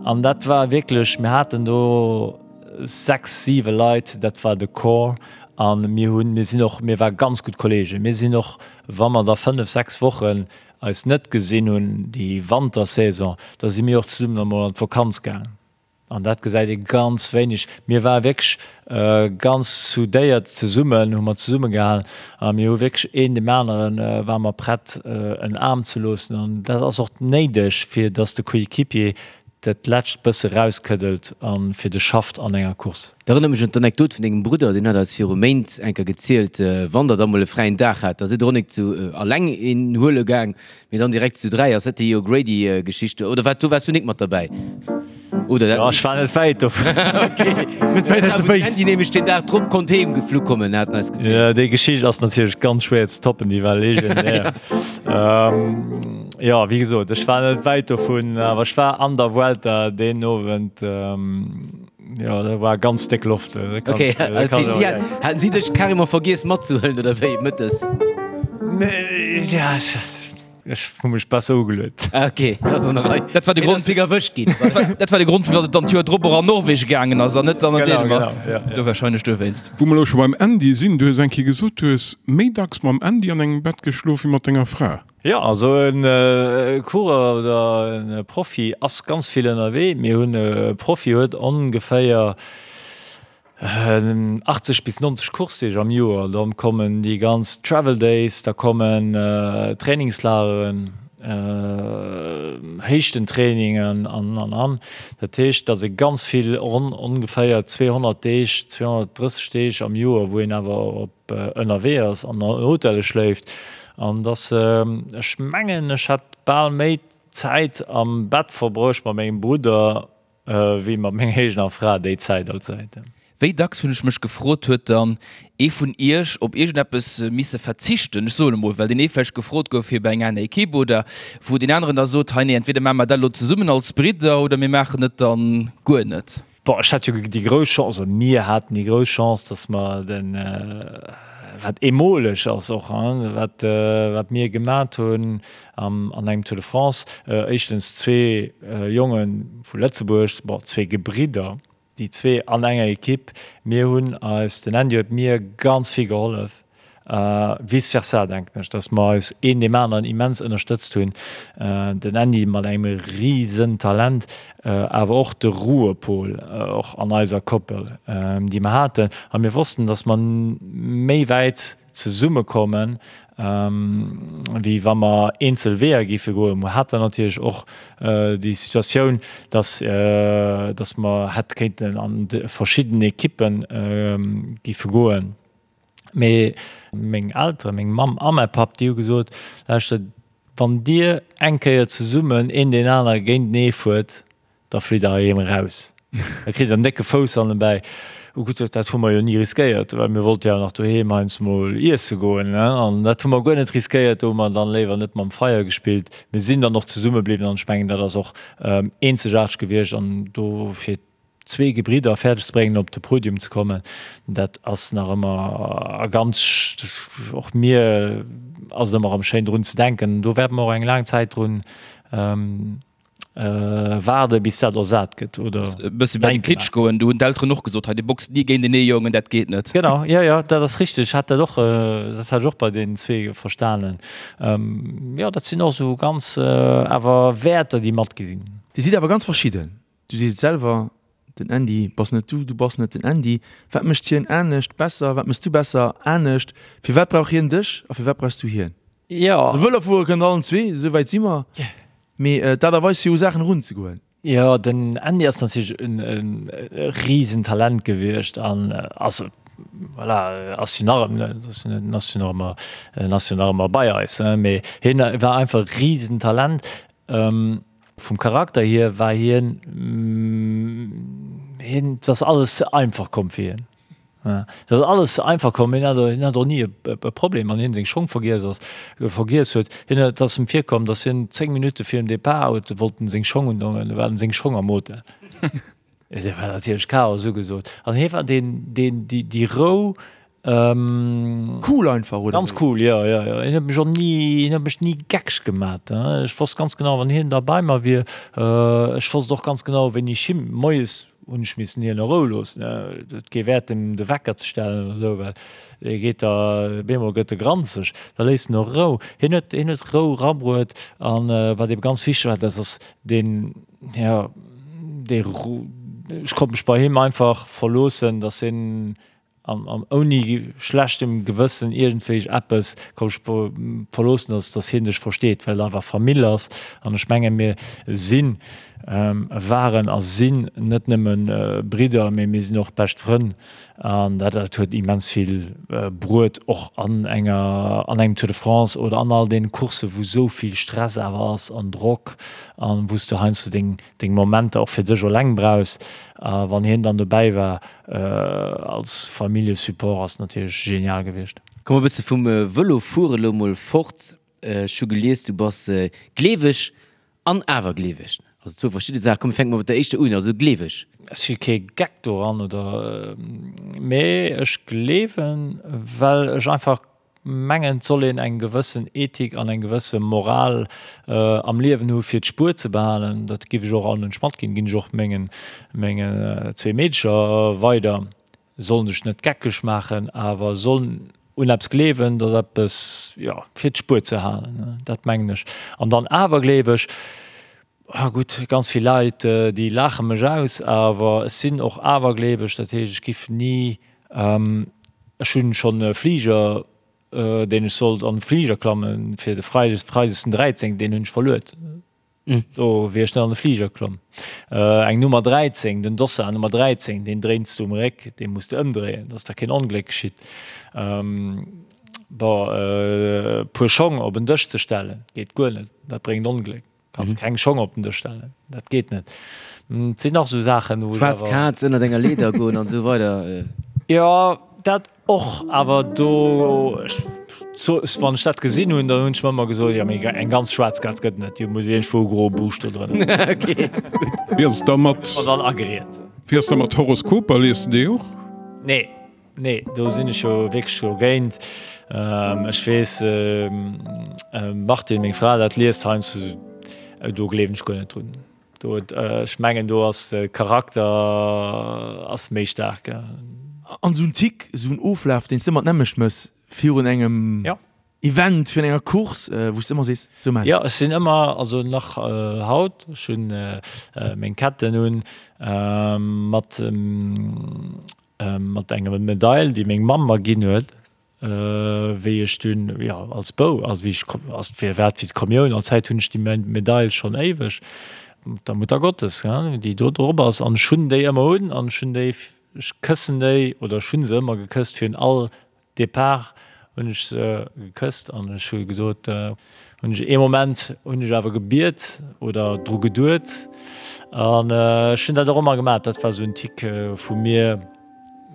C: an dat war wierklech, mir haten do 6, 7 Leit, dat war de Corps a mir hunn, mir sinn och, mir ware ganz gutt Kollegen. Mir sinn och, wa mer da 5, 6 Wochen eis net gesinn hunn, déi Wantersaison, da si mir och zesummen emol an d'Vakanz gaangen. An dat gesäit ee ganz wéineg. Mir ware wierklech ganz soudéiert zesummen, hu mer zesummegehalen a mir hu wierklech een deem anere ware mer prett en Aarm ze loossen. An dat ass och néideg, fir datt de Coéquipier dat lescht bësse rauskëddelt a fir de schafft an enger Course.
A: Dat erënnert mech un d'Anekdot vun dengem Brudder, deen huet eis viru Méint eng Kéier gezielt, wann der da mol e fräien Dag hat, da sidd der och nik zu alleng een huele gaang, mee dann direkt zu 3. Ass dat déi O'Grady-Geschicht oder wat? Do waars du nik mat derbäi, oder?
C: Jo, ech war net wäit dovun.
A: Okay.
B: Net wäit aus de Féiss.
A: Andy nämlech deen Dag drop konnt heem geflu kommen, hat en eis gezielt.
C: Jo, déi Geschicht ass natierlech ganz schwéier ze toppen, déi war legendär. Jo, wéi gesot, ech war net wäit dovun, awer ech war an der Vuelta deen Owend, jo, do war ganz déck Loft.
A: Ok, dat heescht, si haten si dech carrément vergiess matzehuelen, oder wéi, mëttes?
C: Nee, ja, ech hu mech besser ugeluet.
A: Ah, ok, dat ass an der Rei.
D: Dat war de Grond.
A: Hien ass erwëscht ginn.
D: Dat war de Grond, firwat et dann d'Joer drop och an Norwegen gaangen ass an net dann an Dänemark.
C: Genau, genau, ja, ja.
D: Do warscheinlech dowéinst.
E: Wou mer elo scho beim Andy sinn, du hues eng Kéier gesot, du hues méi dacks mam Andy an engem Bett geschlof wéi mat denger Fra.
C: Jo, also e Coureur oder e Profi ass ganz vill ënnerwee. Mir hunn e Profi huet ongeféier 80 bis 90 Coursedeeg am Joer. Da kommen déi ganz Travel Days, da kommen Trainingslageren, Héichtentrainingen an an an. Dat heescht, datt ee ganz vill, ronn ongeféier 200 Deeg, 230 Deeg am Joer, wou een awer op ënnerwee ass an an Hotelle schléift. An datt, ech mengen, ech hätt bal méi Zäit am Bett verbruecht mat mengem Brudder. wéi mat menger eegener Fra déi Zäit allzäit.
D: Wéi dacks hunn ech mech gefrot, huet dann ee vun iech op iergendeppes misse verzichten, ech soen emol, well deen ee vläicht gefrot gouf fir bei eng aner Equipe oder wou deen aneren da sot, hei nee, entweder maache mer dat elo zesummen als Bridder oder mir maachen et dann guer net.
C: Bon, ech hat jo déi grouss Chance, oder mir haten déi grouss Chance, dass mer den, wat eemoleg ass och, wat, wat mir gemat hunn an engem Tour de France, éischtens zwee Jonge vu Lëtzebuerg, bon, zwee Gebridder, Déi zwee an enger Equipe, mir hunn eis, den Andy huet mir ganz vill gehollef, vice versa denken ech, datt mer eis een deem aneren immens ënnerstëtzt hunn. Den Andy mat engem risen Talent, awer och de Ruhepol och an eiser Koppel, déi mer haten. A mir wossten, datt mer méi wäit zesummekommen, wéi wa mer eenzel Weeër géife goen. Mer haten natierlech och déi Situatioun, dass, dass mer hätt kéinten an verschidden Ekippe géife goen. Mee meng Elteren, meng Mamm a mäi Papp, déi hu gesot, Lauschtert, wann Dir eng Kéier zesummen een deen anere géintenee fuert, Da flitt der heiheem eraus. Da kritt der en décke Fouss hannenbäi. Oh gutt, dat hu mer jo ni riskéiert, well mir wollte jo nach doheem heiansdo mol iesse goen, ne? An dat hu mer guer net riskéiert. Do hu mer dann léiwer net mam Feier gespillt. Mir sinn dann och zesumme bliwwen an ech mengen, dat ass och eenzegaarteg gewiescht. An do fir zwee Gebridder fäerdeg ze bréngen, op de Podium ze kommen, dat ass nach ëmmer a ganz, och mir ass et ëmmer erëm schéin drun ze denken. Do wäerte mer och eng laang Zäit drun Waarde bis dat ersat gëtt oder
D: E bësse bei de Klitsch goen, do hunn d'Elteren och gesot, hei dir boxt ni géintenee Jongen, dat geet net.
C: Genau, jo jo, dat ass richteg. Ech hat dat och, dat hat ech och bei deenen zwee verstanen. Jo, dat sinn och esou ganz awer Wäerter, déi matgi sinn.
B: Dir sidd awer ganz verschidden. Du sees et selwer, den Andy bass net du, du bass net den Andy. Wat mécht hien anescht, besser? Wat méchs du besser, anescht? Firwat brauch hien dech a firwat brauchs du hien?
C: Jo.
B: Also Vëlo fuere kënnt allen zwee, esou wäit si mer. Mee d'Aart a Weis fir u Saachen erunzegoen.
C: Jo, den Andy ass natierlech e Risentalent gewiescht an ass, voilà, ass jo nach ëmmer, ass jo nach ëmmer, ass jo nach ëmmer bei eis, mee hien war einfach e Risentalent. Vum Charakter hier war hien, hien, et ass alles ze einfach komm fir hien. Et ass alles ze einfach komm. Hien hat, hien hat och ni e Problem, wann hien seng Schong vergiess ass, vergiess huet. Hien huet, et ass em virkomm, datt hien 10 Minutte virum Depart huet wollt en seng Schong undongen, du waren seng Schong am Hotel. Et war natierlech Chaos ugesot. An hie war deen, deen, déi, déi Rou,
B: Cool einfach, oder?
C: Ganz cool, jo, jo, jo. Hien huet mech och ni, hien huet mech ni geckeg gemat. Ech wosst ganz genau, wann hien da bei mer wier, ech wosst och ganz genau, wéini ech him, moies hunn ech missen hien a Rou loossen, et huet kee Wäert, em de Wecker ze stellen oder esou, well e geet da, op eemol gëtt e granzeg, da léisst en och Rou. Hien huet, hien huet Rou rabruet an wat ebe ganz wichteg war, dat ass deen, jo, dee, ech konnt mech bei him einfach verloossen, dass hien An ouni schlechtem Gewëssen iergendwéi eppes kann ech verloossen, dass, dass hien dech versteet, well et einfach Famill ass. An ech menge mir sinn, waren a sinn net nëmme Bridder, mee mir sinn och bescht Frënn. An dat, dat huet immens vill bruet, och an enger, an engem Tour de France oder an all deene Courssen, wou esou vill Stress awer ass an Drock an wou s de heiansdo deng, deng Momenter och fir dech eleng brauchs. A wann hien dann dobäi war, Als Familljesupport ass natierlech genial gewiescht.
A: Komme e bësse vum Vëlo fuere lo mol fort. Ech hu gelies, du bass gleeweg an awergleeweg. Also zwou verschidde Saachen. Komm mir fänke mol mat der éischter un, also gleeweg.
C: Ech si kee Geck doran oder, mee ech gleewen, well ech einfach Mengen et soll een eng gewëssen Ethik an eng gewësse Moral am Liewen hu fir d'Spuer ze behalen. Dat giff ech och all Mënsch matginn, ginn ech och mengen mengen zwee Meedecher weider. Sollen sech net geckeg maachen, awer sollen un eppes gleewen, datt eppes, jo, fir d'Spuer ze halen, dat mengen ech. An dann awergleeweg, ah gutt, ganz vill Leit déi laache mech aus, awer ech sinn och awergleeweg, dat heescht ech giff ni Ech hunn schonn e Fliger, deen ech sollt an de Fliger klammen fir de Freides, Freides den 13, deen hunn ech verluet. Do wier ech net an de Fliger klomm. Eng Nummer 13, den Dossard Nummer 13, deen dréins du um Réck, dee muss de ëmdréien, dass da keen Ongléck geschitt. Bon, e puer Schong op en Dësch ze stellen, geet guer net, dat bréngt Ongléck. Kanns keng Schong op den Dësch stellen, dat geet net. Et sinn nach esou Saachen, wou ech
A: Schwaarz
C: awer.
A: Kaz ënnert enger Leeder goen an esou weider.
C: Jo, dat och, awer do, ech so, wann ech dat gesinn hunn, dann hunn ech mer ëmmer gesot, jo mee eng ganz schwaarz Kaz gëtt et net, déi muss iergendwou e groe Buuscht do drënner hunn.
A: Ok, gutt.
E: Wéi ass et da mat.
C: An dann ageriet.
E: Wéi ass da mat Horoskoper, lies de déi och?
C: Nee. Nee, do sinn ech jo wierklech dogéint. Ech weess, Martine, meng Fra, dat liest heiansdo, do gleewen ech guer net drun. Do, ech mengen, do ass de Charakter ass méi staark.
B: An esou en Tick, esou en Oflaf, deen s de ëmmer d'nämmlecht mëss virun engem Event, virun enger Course, wou s de ëmmer sees, esou maan ech.
C: Jo, ech sinn ëmmer, also nach haut, ech hunn meng Ketten un mat Mat enger Medail, déi meng Mamm mer ginn huet, wéi ech dunn, jo, als Bou, also wéi ech, als fir wat fir d'Kommioun, an Zäit hunn ech déi Medail schonn éiweg, der Muttergottes, gell, déi do drop ass. An ech hunn déi ëmmer un an ech hunn déi, ech këssen déi oder ech hu se ëmmer gekësst virun all Depart hunn ech se gekësst an ech hu gesot, hunn ech ee Moment hunn ech awer gebiet oder dru geduet an ech hunn dat och ëmmer gemaach. Dat war esou en Tic vu mir.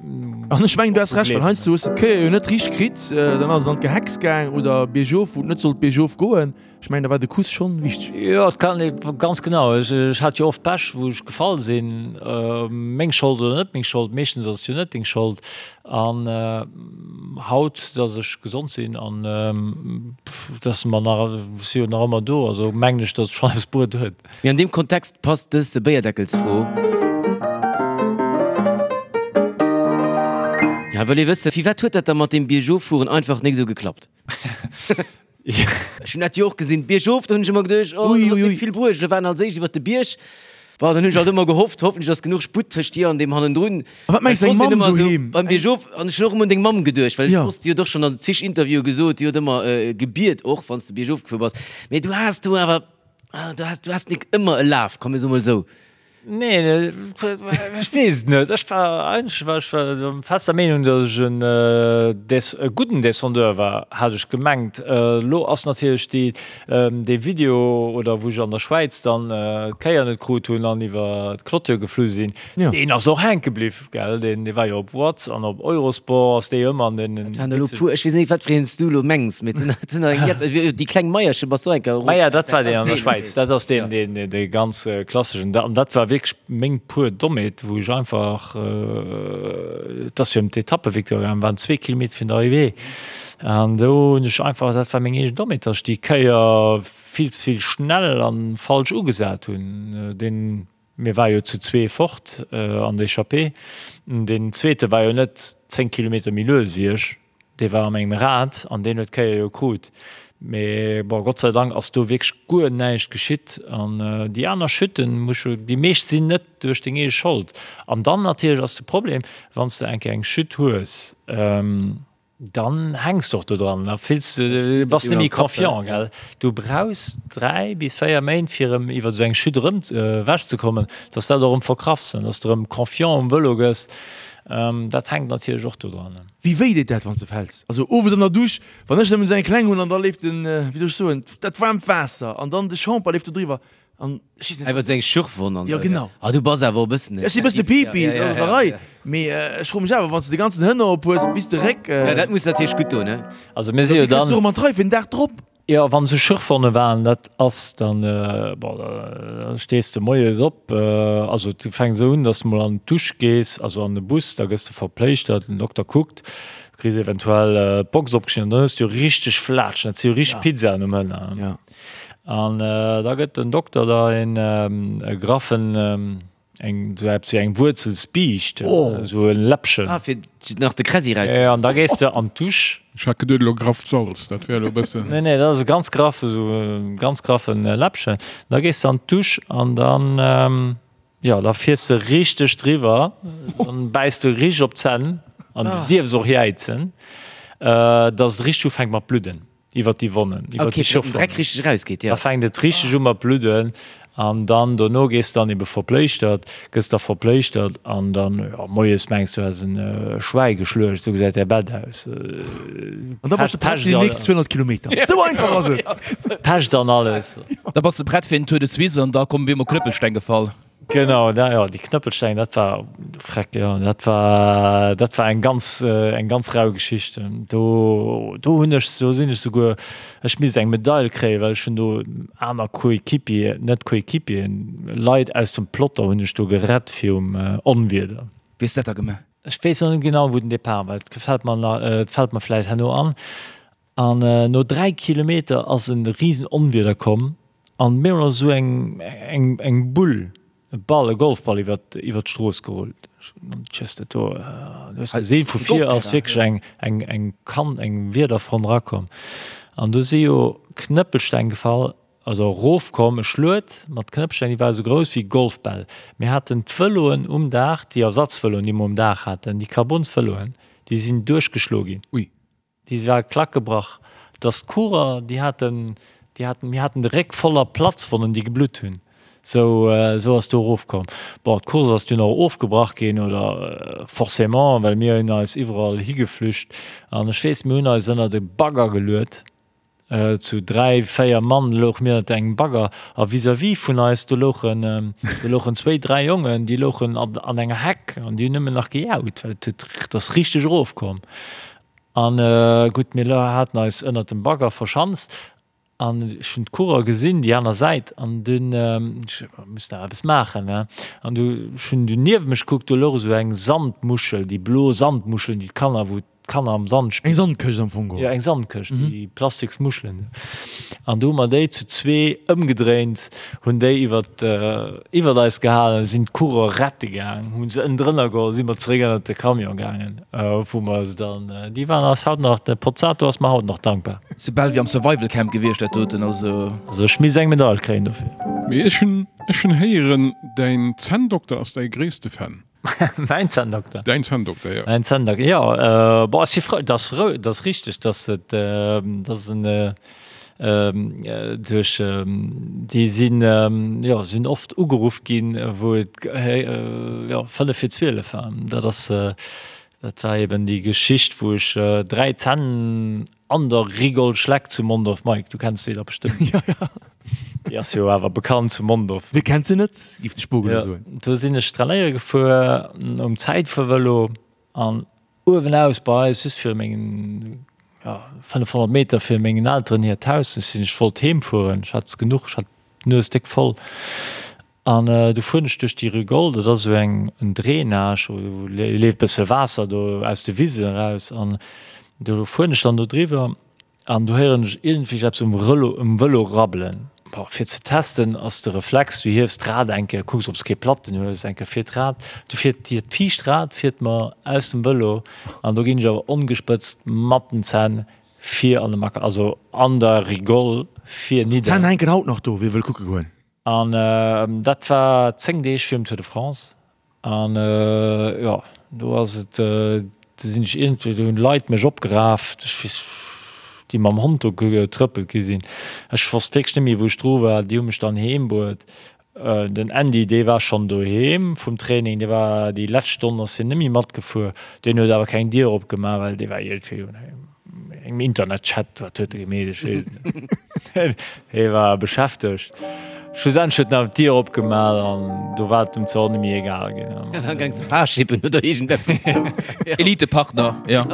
B: An ech mengen, du has Recht, well heiansdo hues de d'Kéier jo net richteg kritt, dann ass et an d'Gehecks gaang oder biergof, wou et net sollt biergof goen. Ech mengen, da war de Kuss schonn wichteg.
C: Jo, et kann ee, ganz genau. Ech hat jo oft Pech, wou ech gefall sinn. Meng Schold oder net meng Schold, meeschtens ass et jo net deng Schold. An haut, datt ech gesond sinn an datt mer nach, ech si jo nach ëmmer do, also mengen ech, datt et schonn eppes bruet huet.
A: Mee an deem Kontext passt dës Béierdeckelsfro. Ja, wëll ee wëssen, firwat huet dat da mat deem Biergoffueren einfach nik esou geklappt? Ech hunn dat jo och gesinn, biergof, do hunn ech ëmmer geduecht, oh, dat huet net vill bruecht. Da waren als éischt iwwer de Bierg, bon, dann hunn ech alt ëmmer gehofft, hoffentlech ass genuch Sputt tëscht dir an deem hannendrun.
B: A wat mengs
A: deng
B: Mamm doheem?
A: Beim Biergof, an ech hunn och ëmmer un deng Mamm geduecht, well ech wosst, déi huet och schonn an zig Interviewe gesot, déi huet ëmmer gebiet och, wann s de biergof gefuer bass. Mee du has do awer, du has, du has nik ëmmer e Laf, komm mir soe mol esou.
C: Nee, ech weess et net. Ech war eigentlech war ech der fester Meenung, datt ech en Des e gudden Descendeur war, hat ech gemengt. Elo ass natierlech déi dee Video, oder wou ech an der Schwäiz dann d'Kéier net krut hunn an iwwer d'Clôture geflu sinn, deen ass och hänke bliww, gell. Deen dee war jo op Watz an op Eurosport ass dee ëmmer an den.
A: Dat waren elo puer, ech weess net, wat fir een s du elo mengs, mee et sinn der eng jett. Déi kleng Maierche bass du och eng Kéier erof.
C: Ah ja, dat war deen an der Schwäiz. Dat ass deen, deen, dee ganz klasseschen. An dat war wierklech meng puer Dommheet, wou ech einfach, et ass jo ëm d'Etappevictoire gaangen, waren zwee Kilometer virun der Arrivée. An do hunn ech einfach, dat war meng eegen Dommheet, datt ech déi Kéier vill ze vill schnell a falsch ugesat hunn. Deen, mir ware jo zu zwee fort an der Echappée. Deen zweete war jo net 10 Kilometer méi lues wéi ech. Dee war a mengem Rad an deen huet d'Kéier jo krut. Mee bon, Gott sei Dank ass do wierklech guer näischt geschitt. An déi aner Chuten, muss ech, déi meescht sinn net duerch deng eege Schold. An dann natierlech ass de Problem, wann s de eng Kéier eng Chute hues, dann hänks de och do dran, da fills de, bass net méi confiant, gell. Du brauchs 3 bis 4 Méint fir erëm iwwer esou eng Chute erëm ewechzekommen, dass dat och erëm verkraffs an dass de erëm confiant um Vëlo gëss. Dat hänkt natierlech och do dran.
B: Wéi wéi deet dat wann s de fäls? Also owes an der Dusch, wann ech nëmmen esou eng kleng hunn an da leeft den, wéi soll ech soen, dat waarmt Waasser an dann de Shampoing leeft do driwwer an ech weess net.
A: Iwwer seng Schürfwonn an
B: Jo
A: esou.
B: genau.
A: Ah du bass awer och e bëssen e.
B: Ech si e bëssen e Pipi, dat ass an der Rei, mee ech froe mech awer, wann s de de ganzen Hënner op hues bis de Réck.
A: Ja dat muss natierlech gutt doen, ne?
C: Also mir si
B: Wéi
C: jo
B: kriss du
C: dann.
B: erëm an d'Rei fir den Dag drop?
C: Jo, wann se Schürfwonne waren, dat ass dann, bon, da stees de moies op, also du fänks esou un, dass de mol an d'Dusch gees, also an de Bus, da gëss de verpléischtert, den Dokter kuckt, du kriss eventuell d'Box opgeschnidden, dann hues du jo richteg Flaatschen, dat si jo richteg Pizzaen um Hënner. An da gëtt den Dokter der een e graffen, Eng, sou eppes wéi eng Wuerzelsbiischt, sou e Läppchen.
A: Ah, fir nach de Kräsi
C: raus. Ja, an da gees de an d'Dusch.
E: Ech hat geduet elo grafft Salz, dat wär elo e bëssen.
C: Nee, nee, dat ass e ganz graffe, sou e ganz graffen Läppchen. Da gees de an d'Dusch an dann, jo, da fiers de richteg driwwer, dann bäiss de richteg op d'Zänn an du dierfs och jäizen, dass et richteg ufänkt mat bludden. Iwwer déi Wonnen, iwwer
A: okay,
C: déi Schürfwonnen.
A: Dreck richteg rausgeet,
C: ja. Da fänkt et richteg u mat bludden an dann dono gees dann ebe verpléischtert, gëss da verpléischtert an dann, jo, moies mengs du häss en Schwäi geschluecht, esou gesäit däi Bett aus.
B: An da bass de prett fir déi nächst 200 Kilometer. Esou einfach ass et!
C: Pescht an alles.
D: Da bass de prett fir den Tour de Suisse an da kommen op eemol Knëppelsteng gefall.
C: Genau, da, jo, déi Knëppelsteng, dat war, freck, jo, dat war, dat war eng ganz, eng ganz rau Geschicht. Do, do hunn ech, do sinn ech souguer, ech misst eng Medail kréien, well ech hunn do aner Coéquipier, net Coéquipieren, Leit aus dem Plotter hunn ech do gerett virum Onwieder.
D: Wéi hues de dat da gemaach?
C: Ech weess nach net genau, wou den Depart war, et gefält mer nach, et fält mer vläicht herno an. An no 3 Kilometer ass e risen Onwieder komm an mir hunn esou eng eng eng Bull, e Ball, e Golfball iwwert iwwert d'Strooss gerullt. Tschëss, dat do, du hues gesinn, vu vir ass wierklech eng eng eng Kann, eng Wiederfront erakomm. An do si jo Knëppelsteng gefall, also erofkomm, e Schluet mat Knëppelsteng, déi war esou grouss wéi Golfbäll. Mir haten d'Vëloen um Daach, déi Ersatzvëloen, déi mer um Daach haten, déi Carbonsvëloen, déi sinn duerchgeschloe ginn.
E: Ui.
C: Déi war klack gebrach. Dass d'Coureur, déi haten, déi haten, mir haten de Réck voller Platzwonnen, déi geblutt hunn. Sou, sou ass do erofkomm. Bon, d'Course ass dunn och ofgebrach ginn, oder forcément, well mir hunn eis iwwerall higeflücht. An ech weess, mir hunn eis ënnert e Bagger geluet. Zu 3, 4 Mann louche mir ënnert engem Bagger a vis-à-vis vun eis, do louchen, do louchen zwéi, dräi Jongen, déi louchen an, an enger Heck an déi hunn nëmmen nach gejaut, well et huet, et ass richteg erofkomm. An gutt, mir haten eis ënnert dem Bagger verschanzt an ech hunn d'Coureur gesinn, déi aner Säit, an dunn, ech muss nach eppes maachen, ne, an du, ech hunn du niewent mech gekuckt, do louch esou eng Sandmuschel, déi blo Sandmuscheln, déi d'Kanner, wou d'Kanner am Sand
B: spillen. Eng Sandkëscht am Fong
C: geholl. Jo, eng Sandkëscht, déi plastiks Muschelen. An du hu mer déi zu zwee ëmgedréint, hunn déi iwwert, iwwert eis gehalen, sinn d'Coureur rette gaang, hu se ënnendrënner geholl, si mer zeréck ënnert de Camion gaangen, wou mer se dann, déi waren eis haut nach, de Pozzato ass mer haut nach dankbar.
D: Sou bal wéi am Survival Camp gewiescht dat doten, also.
C: Also ech misst eng Medail kréien dofir.
E: Mee ech hunn, ech hunn héieren, däin Zänndokter ass däi gréisste Fan.
C: Mäin Zänndokter?
E: Däin Zänndokter, jo.
C: Mäin Zänndokter, jo. Bon, ech si frou, dat ass frou, dat ass richteg, dass et, dass en duerch, déi sinn, jo, sinn oft ugeruff ginn, wou et, jo, fënnef vir 12 war. Dat ass, dat war eben déi Geschicht, wou ech 3 Zänn An der Rigole Schleck zu Mondorf. Mike, du kenns déi da bestëmmt.
B: Ja, ja.
C: Déi ass jo awer bekannt zu Mondorf.
B: Wie kennt se net, giff de Spogel
C: Ja,
B: soen.
C: do sinn ech trainéiere gefuer um Zäitfuervëlo an uewenaus bei eis, just viru mengen, ja, 500 Meter vir mengen Elteren hiert Haus. Ech sinn, ech wollt heem fueren, ech hat es genuch, ech hat d'Nues déck voll. An du fueren ech duerch déi Rigole, dat ass esou eng en Drainage, do leeft bësse Waasser do aus de Wisen eraus an do fueren ech dann do driwwer an do héieren ech iergendwéi eppes um Rëlo um Vëlo rabbelen. Bon, fir ze testen ass de Reflex, du hiefs d'Rad eng Kéier, kucks ob s kee Platten hues, eng Kéier fir d'Rad, du fiert dir d'viischt Rad fiert mer aus dem Vëlo an do ginn ech awer ongespëtzt mat den Zänn vir an de Macker, also an der Rigole vir nidder.
B: D'Zänn hänken haut nach do, wie wëll kucke goen.
C: An dat war 10 Deeg virum Tour de France. An jo, do ass et, do sinn ech iergendwéi, do hunn Leit mech opgeraf, ech weess, déi mam Hond do getrëppelt gi sinn. Ech wosst wierklech net méi, wou ech dru war. Déi hu mech dann heem bruet. Den Andy, dee war schonn doheem vum Training, dee war déi lescht Stonn ass hien net méi matgefuer. Deen huet awer keng Dier opgemaach, well dee war iergendwéi Engem Internetchat, wat huet e gemeet, ech weess et net. Hie war beschäftegt. Schlussendlech huet en awer d'Dier opgemaach an do war et em zwar och net méi egal ginn.
A: Hie war gaang ze Parshippen oder iergendeppes esou.
D: Elitepartner, jo.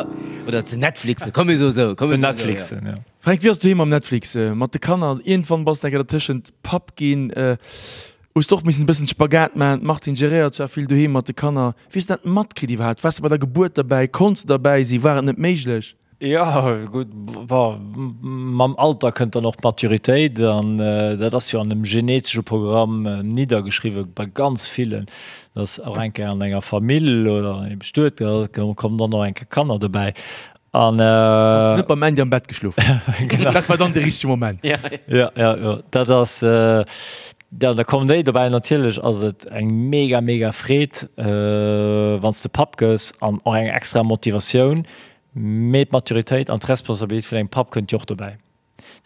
A: Oder ze Netflixen, komm mir soe sou, komm
C: Ze
A: mir soe sou, jo.
C: Netflixen, jo.
B: Fränk, wéi ass et doheem mam Netflix? Mat de Kanner, iergendwann bass de enker dertëschent Papp ginn. Hues de och missen e bëssen Spagat maachen? D'Martine geréiert zwar vill doheem mat de Kanner. Wéi hues de dat matkritt iwwerhaapt? Waars de bei der Gebuert derbäi? Konns de derbäi sinn? War et net méiglech?
C: Jo, gutt, bon, mam Alter kënnt dann och d'Maturitéit an dat ass jo an dem genetesche Programm niddergeschriwwe bei ganz villen, dass och eng Kéier an enger Famill oder an engem Bestuet, da kommen dann och eng Kéier Kanner dobäi.
B: An Hues net beim Andy am Bett geschlof?
C: Genau.
B: Dat war dann de richtege Moment.
C: Ja, ja, ja, dat ass, ja, da kommen déi dobäi. Natierlech ass et eng mega, mega Freed, wann s de Papp gëss an och eng extra Motivatioun. Mee d'Maturitéit an d'Responsabilitéit vun engem Papp kënnt jo och dobäi.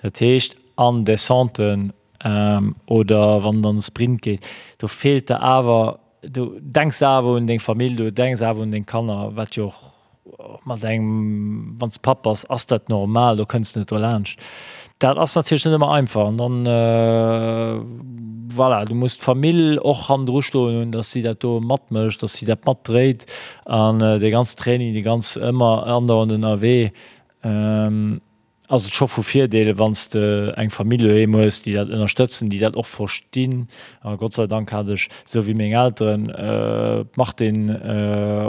C: Dat heescht an Descenten oder wann et an de Sprint geet, do feelt der awer, do denks de awer un deng Famill, do denks awer un deng Kanner, wat jo och mat engem, wann s de Papp bass, ass dat normal, do kënns de net dolaanscht. Dat ass natierlech net ëmmer einfach. An dann, voilà, du muss d'Famill och hannendru stoen hunn, datt si dat do matmécht, datt si dat matdréit. An dee ganzen Training, déi ganz ëmmer andauernd ënnerwee, ass et scho vu Virdeel, wann s de eng Famill doheem hues, déi dat ënnerstëtzen, déi dat och verstinn. A Gott sei Dank hat ech, esou wéi meng Elteren, d'Martine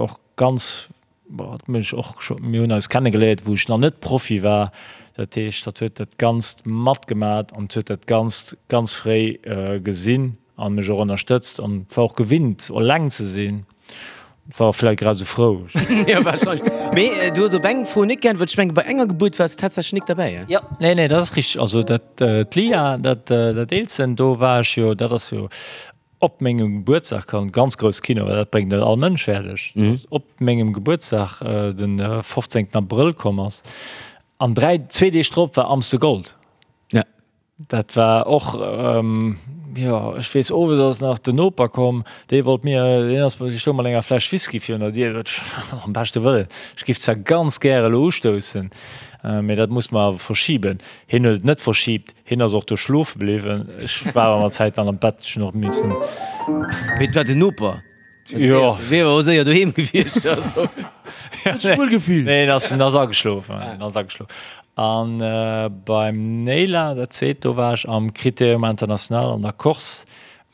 C: och ganz, bon, dat muss ech och scho, mir hunn eis kennegeléiert, wou ech nach net Profi war. Dat heescht, hatt huet dat Ganzt matgemat an huet dat Ganzt ganz fréi gesinn a mech och ënnerstëtzt an war och gewinnt, eleng ze sinn. War och vläit grad esou frou.
A: Jo, wahrscheinlech. Mee du hues op eng Fro net geäntwert. Ech mengen, bei enger Gebuert waars de tatsächlech nik derbäi,
C: he? Jo, nee, nee, dat ass richteg. Also dat, d'Lia, dat, dat Eelsten, do war ech jo, dat ass jo op mengem Gebuertsdag komm, ganz grouss Kino, well dat bréngt net all Mënsch fäerdeg, dass op mengem Gebuertsdag, den 15. Abrëll komm ass. An 3, zwee Deeg drop war Amstel Gold.
A: Ja.
C: Dat war och, jo, ech weess, owes ass nach den Noper komm, dee wollt mir, deen ass, dee stoung mat enger Fläsch Whisky virun der Dier, dat am beschte Wëllen, ech giff zwar ganz gäre elo ustoussen, mee dat muss mer awer verschiben. Hien huet et net verschibt, hien ass och do schlofe bliwwen, ech war awer mat Zäit dann am Bett, ech hunn och missen.
A: Mee et war den Noper?
C: Jo.
A: Wier awer och séier doheem gewiescht. Also.
B: Huet sech wuel gefillt.
C: Nee, en ass, en ass ageschlof, en ass ageschlof. An beim Neyla, dat zweet, do war ech am Critérium International an der Corse.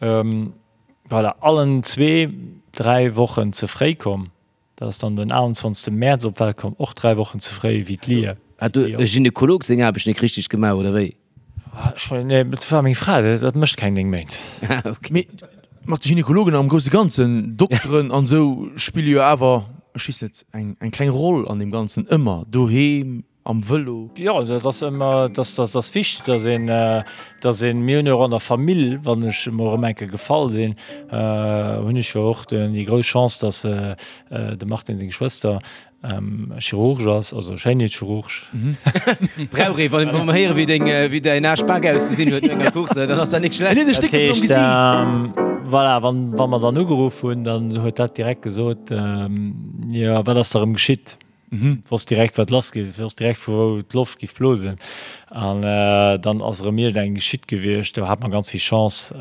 C: Voilà, allen zwee 3 Wochen ze fréi komm. Dat ass dann den 21. Mäerz op d'Welt komm, och 3 Wochen ze fréi wéi d'Lia.
A: Hat do e Gynekolog seng Aarbecht nik richteg gemaach, oder wéi?
C: Ech mengen, nee, dat war meng Fra, dat mécht keng 9 Méint.
A: Ah, ok.
B: Mee mat de Gynekologen am grousse Ganzen, Dokteren an esou spille jo awer, ech weess net, eng eng kleng Roll an deem Ganzen ëmmer, doheem, am Vëlo.
C: Jo, dat ass ëmmer, dat ass, ass wichteg, dass een, dass een, mir hunn jo och an der Famill, wann ech emol erëm eng Kéier gefall sinn, hunn ech jo och déi grouss Chance, dass de Martin seng Schwëster Chirurg ass, also Schéinheetschirurg.
A: Brauch ee, wann mer héiere wéi deng, wéi däin Aaschbak ausgesinn huet no enger Course, dann ass dat nik schlecht.
B: En huet e Stéck dovun am Gesiit.
C: Voilà, wann, wa mer dann ugeruff hunn, dann huet dat direkt gesot, jo, wat ass da erëm geschitt? Wosst direkt, wat lass geet, wosst direkt, vu wou d'Loft giff blosen. An dann ass erëm iergendeng geschitt gewiescht. Do hat mer ganz vill Chance,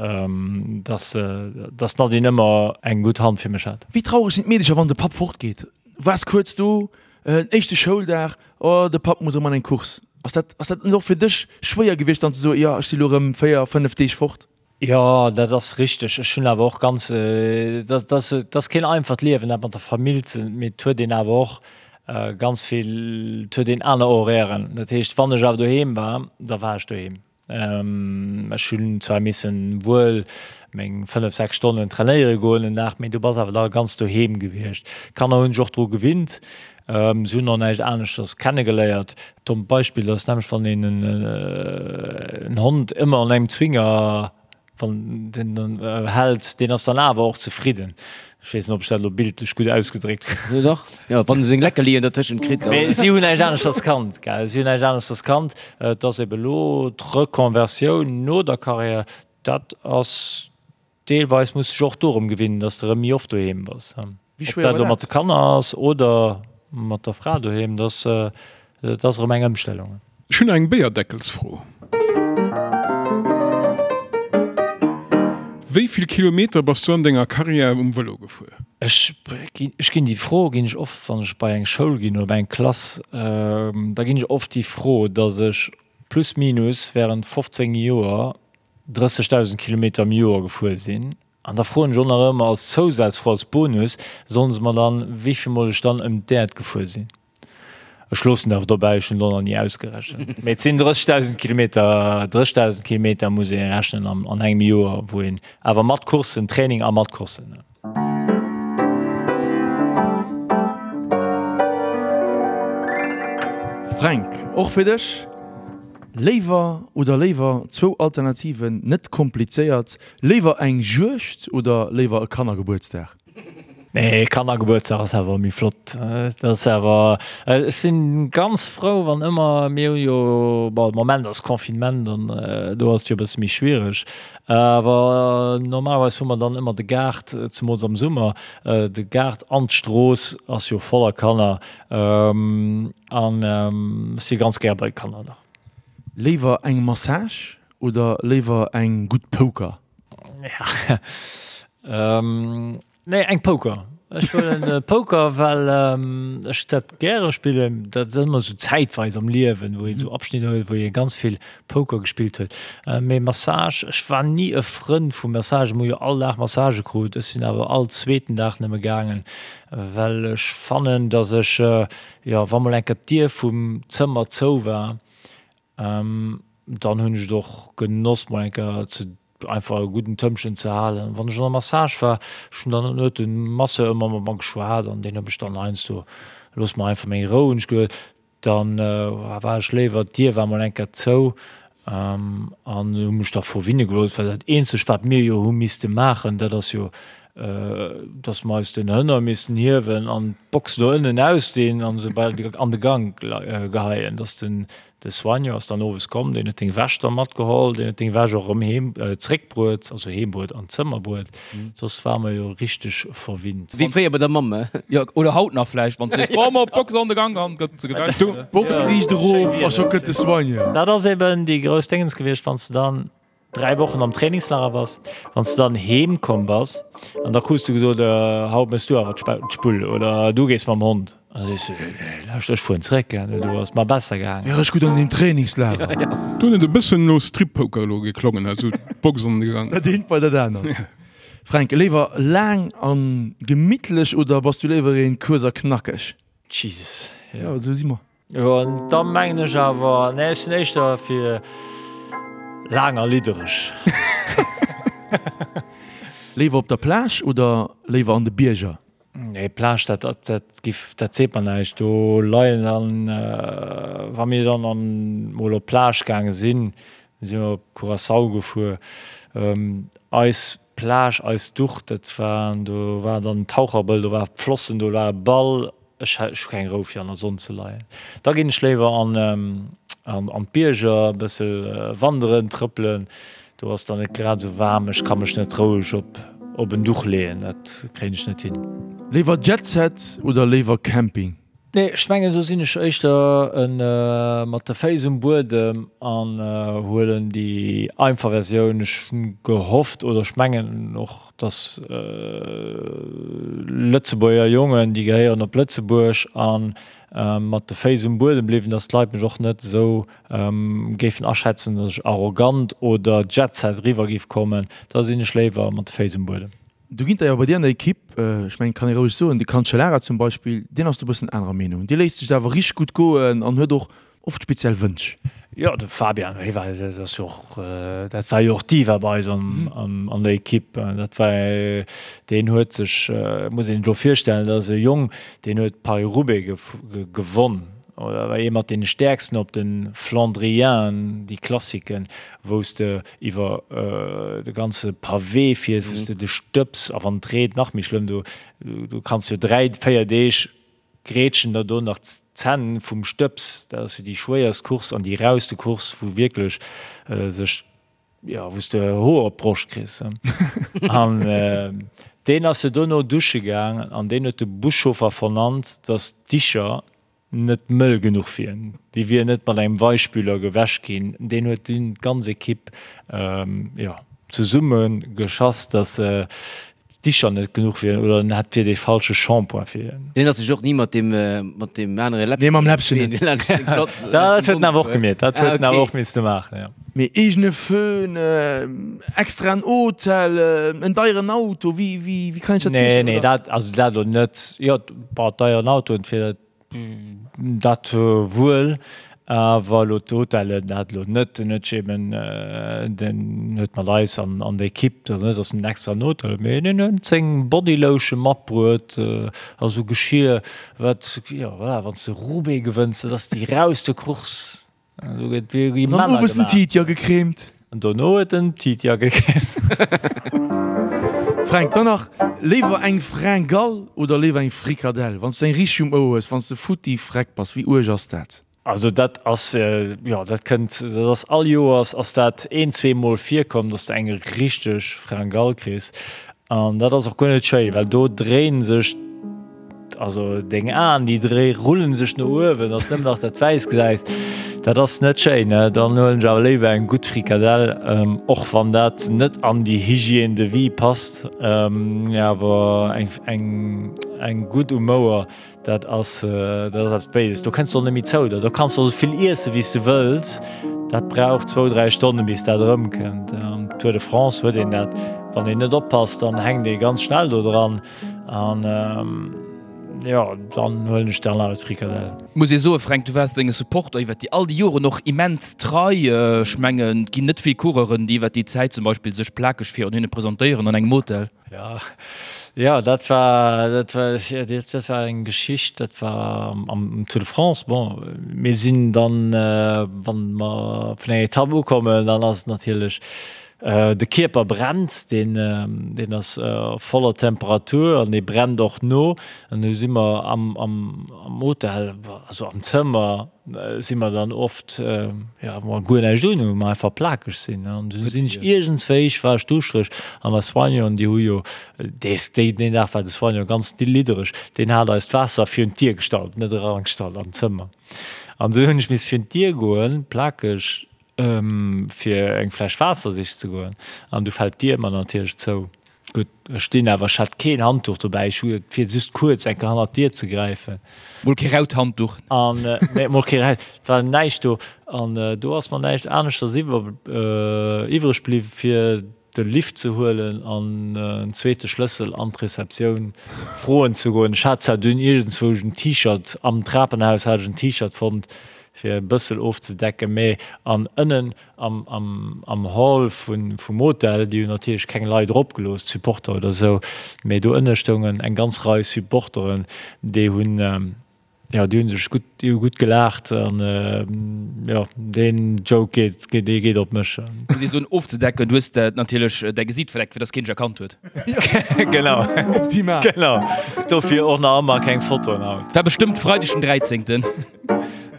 C: dass, dass d'Nadine ëmmer eng gutt Hand fir mech hat.
B: Wéi traureg sinn d'Meedecher, wann de Papp fortgeet? Waars kuerz do, éischte Schouldag, oh de Papp muss erëm an eng Course. Ass dat, ass dat net och fir dech schwéier gewiescht dann ze soen, jo ech si lo erëm 4, 5 Deeg fort?
C: Jo, dat ass richteg. Ech hunn awer och ganz, dat ass, dat ass keen einfacht Liewen, dat mat der Famill ze, mee et huet een awer och ganz vill, et huet een aner Horairen. Dat heescht, wann ech awer doheem war, da war ech doheem. Ech hunn zwar missen wuel meng 5, 6 Stonnen trainéiere goen den Dag, mee du bass awer da ganz doheem gewiescht. D'Kanner hunn sech och dru gewinnt, se hunn och näischt aneschters kennegeléiert. Dommt Beispill ass nämlech, wann een en Hond ëmmer an engem Zwinger Wann den dann hält, deen ass dann awer och zefridden. Ech weess net, ob ech dat elo bildlech gutt ausgedréckt
A: hunn. Jo dach, jo, wann e seng Leckerlien dertëschent kritt, dann.
C: Mee si hunn näischt aneschters kannt, gell, si hunn näischt aneschters kannt. Et ass ebe elo d'Reconversioun no der Carrière, dat ass deelweis, muss sech och dorëm gewinnen, datt s de erëm méi oft doheem bass.
B: Wéi
C: Ob
B: schwéier
C: dat
B: war
C: elo mat
B: dat?
C: de Kanner ass oder mat der Fra doheem, dat ass erëm eng Ëmstellung.
E: Ech hunn eng Béierdeckelsfro. Wéi vill Kilometer bass du an denger Karriär um Vëlo gefuer?
C: Ech ginn, ech ginn déi Fro ginn ech oft, wann ech bei eng Schoul ginn oder bei eng Klass, da ginn ech oft déi Fro, datt ech plus minus während 15 Joer 30.000 Kilometer am Joer gefuer sinn. An da froen ech och nach ëmmer als Zousazfro, als Bonus, sollen se mer dann, wéi vill mol ech dann ëm d'Äerd gefuer sinn. Ech loossen et awer dobäi, ech hunn et och nach ni ausgerechent. Mee et sinn 30.000 Kilometer, 30.000 Kilometer muss ee rechnen an, an engem Joer, wou een awer mat Courssen, Training a mat Courssen.
B: Fränk, och fir dech, léiwer oder léiwer, zwou Alternativen, net komplizéiert, léiwer eng Juegd oder léiwer e Kannergebuertsdag?
C: Nee, Kannergebuertsdag ass awer méi flott. Dat ass awer, ech sinn ganz frou wann ëmmer, mir hu jo, bon de Moment ass Confinement an do ass et jo e bësse méi schwiereg, awer normalerweis hu mer dann ëmmer de Gaart, zemools am Summer, de Gaart an d'Strooss ass jo voller Kanner an ech si ganz gär bei de Kanner nach.
B: Léiwer eng Massage oder léiwer eng gutt Poker?
C: Nee, eng Poker. Ech huelen Poker, well ech dat gäre spillen. Dat ass ëmmer esou zäitweis am Liewen, wou een esou Abschnitter huet, wou ee ganz vill Poker gespillt huet. Mee Massage, ech war ni e Frënd vu Massage. Mir hu jo all Dag Massage krut. Ech sinn awer all zweeten Dag nëmme gaangen, well ech fannen, datt ech, jo, wa mol eng Kéier d'Dier vum Zëmmer zou war, Dann hunn ech et och genoss mol eng Kéier ze einfach e gudden Tëmpchen ze halen. Wann ech an der Massage war, ech hunn dann huet de Masseur ëmmer mat mer geschwat an deen huet mech dann heiansdo, looss mer einfach meng Rou hunn ech gesot, dann war ech léiwer, d'Dier war mol eng Kéier zou an hu mech da verwinne gelooss, well dat eenzegt wat mir jo hu misste maachen, dat ass jo dass mer eis den Hënner missten hiewen an d'Box do ënnen ausdinn an se bei an de Gank geheien, dass den de Soigneur ass dann owes komm, deen huet deng Wäsch da matgeholl, deen huet deng Wäsch och erëm heem zréckbruet, also heem bruet, an d'Zëmmer bruet, soss ware mer jo richteg verwinnt.
A: Wéi fréier bei der Mamm, he?
D: Jo, oder haut nach vläicht, wann s du sees, Komm op, d'Box an de Gank an gëtt se gewäsch.
B: D'Box liicht erof a scho kënnt de Soigneur.
C: Dat ass eben déi grouss Déngens gewiescht, wann s de dann 3 Wochen am Trainingslager bass, wann s de dann heem komm bass an da krus du gesot, haut méchs du awer d'Spull oder du gees mam Hond. An da sees du, nee lauscht, ech fueren zréck, do ass et mer besser gaangen.
B: Wär ech gutt an deem Trainingslager.
E: Do huet et e bëssen no Strip-Poker elo geklongen, esou d'Box an de Gang.
B: Dat eent bei dat anert. Fränk, léiwer laang a gemittlech oder bass du léiwer een kuerz a knackeg?
C: Jesus,
B: jo. Jo, esou si mer.
C: Jo, an da mengen ech awer, nee, ech sinn éischter fir laang a liddereg.
B: Léiwer op der Plage oder léiwer an de Bierger?
C: Nee, Plage, dat, dat giff, dat seet mer näischt. Do leien dann, wa mir dann an mol op d'Plage gaange sinn, si mer op Curaçao gefuer, eis Plage, eis Duch, dat war, do war dann Taucherbëll, do war Flossen, do war e Ball, Ech hu keng Rou fir an der Sonn ze leien. Da ginn ech léiwer an an d'Bierger, e bësse wanderen, trëppelen. Do ass dann net grad esou waarm. Ech ka mech net roueg op op en Duch leeën, dat kréien ech net hin.
B: Léiwer Jetset oder léiwer Camping?
C: Nee, ech mengen do sinn ech éischter e mat de Féiss um Buedem an huelen déi einfach Versioun. Ech hunn gehofft oder ech mengen och, dass Lëtzebuerger Jongen, déi gehéieren op Lëtzebuerg a mat de Féiss um Buedem bliwwen, dass d'Leit mech och net esou géifen aschätzen, dass ech arrogant oder Jetset eriwwer géif kommen. Da sinn ech léiwer mat de Féiss um Buedem.
B: Do ginn der jo bei dir an der Ekipp, ech mengen, kann ee roueg soen, de Cancellara zum Beispill, deen ass do e bëssen anerer Meenung. Dee léisst sech et awer richteg gutt goen an huet och Oft speziell Wënsch.
C: Jo, de Fabian, hie war, dat ass jo och, dat war jo och d'Diva bei eis an der Ekipp. Dat war, deen huet sech, muss een sech elo virstellen, dat ass e Jong, deen huet Paris-Roubaix gewonn oder war ee mat deene stäerksten op de Flandrienen, déi Klassiken, wou s de iwwer de ganze Pavé fiers, wou s de de Stëbs, a wann et reent nach méi schlëmm, do do kanns jo 3, 4 Deeg Grätschen der do nach d'Zänn vum Stëbs. Dat ass jo déi schwéierst Course an déi rauste Course, wou wierklech sech, jo, wou s de Hoer op d'Broscht kriss. An deen ass jo dono dusche gaang an deen huet de Buschauffer vernannt, datt d'Dicher net mëll genuch wieren. Déi wieren net mat engem Weichspüler gewäsch ginn. Deen huet dunn d'ganz Ekipp, jo, zesumme geschass, datt d'Dicher net genuch wieren oder en hätt wier dee falsche Shampoing fir hien.
A: Deen ass sech och ni mat deem mat deem anere
B: Läppchen. Nee, mam Läppchen net.
C: Dat huet en awer och gemeet, dat huet en awer och misste maachen, jo.
B: Mee eegene Föhn, extraen Hotel, en deieren Auto, wéi wéi kann ech dat
C: virstellen? Nee, nee, dat also dat elo net. Jo, bon, deieren Autoen fir dat Dat wuel, awer elo d'Hotellen, dat elo net. Den huet sech eben, den huet mat eis an an der Equipe, dat ass net, datt en extra en Hotel huet, mee deen huet seng Bodylotion matbruet a sou Geschir, wat, jo voilà, wann s de Roubaix gewënns, dat ass déi rauste Course. Do gëtt wéi
B: An dann
C: Männer
B: owes den
C: gemaach.
B: Titia gecremt.
C: An dono huet en Titia gecremt.
B: Fränk, dann nach, léiwer eng Fringale oder léiwer eng Frikadell? Wann s du eng richteg um Ouer hues, wann s de futti freck bass, wéi uerg ass dat?
C: Also dat ass, jo, dat kënnt, dat ass all Joers ass dat een, zweemol virkomm, dass de eng richteg Fringale kriss. An dat ass och guer net schéi, well do dréinen sech, also deng Aen, déi dréi rullen sech no uewen, dass nëmmen nach dat Wäiss gesäis. Dat ass net schéin, ne? Dann huelen ech awer léiwer eng gutt Frikadell, och wann dat net an déi Hygiène de vie passt, awer eng eng gutt um Mouer, dat ass dat ass eppes Béises. Do kënns de och net méi zou der. Do kanns de och esou vill iesse wéi s de wëlls, dat brauch zwou, dräi Stonne bis dat erëmkënnt. Am Tour de France huet een dat, wann een net oppasst, dann hänkt ee ganz schnell do dran an. Jo, dann huelen ech dann awer d'Frikadell.
D: Muss ee soen, Fränk, du waars denge Supporter iwwert déi all déi Joren och immens trei. Ech mengen, et ginn net vill Coureuren, déi iwwert déi Zäit zum Beispill sech plakeg virun hinne presentéieren an engem Hotel.
C: Jo, jo, dat war, dat war, dat war eng Geschicht, dat war am Tour de France. Bon, mir sinn dann, wann mer vun enger Etapp ukommen, dann ass et natierlech De Kierper brennt, deen deen ass voller Temperatur an dee brennt och no. An du si mer am am am Hotel, also am Zëmmer si mer dann oft, jo, wou mer guer näischt un hunn, wou mer einfach plakeg sinn. An du sinn ech iergendswéi, war ech duuschtereg an der Soignant, déi hu jo dees déi deen Dag war de Soignant ganz liddereg, deen hat eis d'Waasser virun d'Dier gestallt, net erangestallt an d'Zëmmer. An du hunn ech miss virun d'Dier goen, plakeg, fir eng Fläsch Waasser sichen ze goen an du fält d'Dier mer natierlech zou. Gutt, ech stinn awer, ech hat keen Handduch dobäi, ech hu et fir just kuerz eng Kéier hannert d'Dier ze gräifen.
D: Mol kee raut Handduch.
C: An, nee, mol kee raut, et war näischt do. An do ass mer näischt aneschters iwwer, iwwreg bliww fir de Lift ze huelen an en zweete Schlëssel an d'Receptioun froen ze goen. Ech hat zwar dunn iergendzwousch en T-Shirt, am Trapenhaus hat ech en T-Shirt fonnt, fir e bëssel ofzedecken, mee an ënnen am, am, am Hall vun, vum Hotel, déi hunn natierlech keng Leit eropgelooss, d'Supporter oder esou, mee do ënne stoungen eng ganz Rei Supporteren, déi hunn, jo, déi hunn sech gutt, déi hu gutt gelaacht an, jo, deen Joke geet, geet, dee geet op mech.
D: Muss ee soen, ofzedecken, du hues natierlech däi Gesiit verdeckt, fir dass keen dech erkannt huet.
C: Genau.
B: Optimal.
C: Genau. Dofir och nach ëmmer keng Fotoen haut.
D: War bestëmmt Freideg den 13.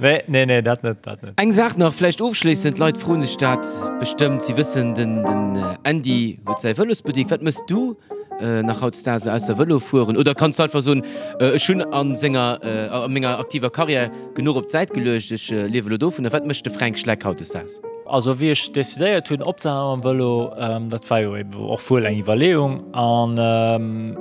C: Nee, nee, nee, dat net, dat net.
A: Eng Saach nach, vläicht ofschléissend, d'Leit froen sech dat bestëmmt, si wëssen, den Andy huet säi Vëlosbuttek. Wat méchs du nach hautdesdaags elo ausser Vëlo fueren? Oder kanns du einfach soen, ech hunn a senger, a menger aktiver Karriär genuch op d'Säit geluecht, ech liewe elo dovunner. Wat mécht de Fränk Schleck hautdesdaags?
C: Also wéi ech decidéiert hunn opzehalen mam Vëlo, dat war jo eben och wuel eng Iwwerleeung an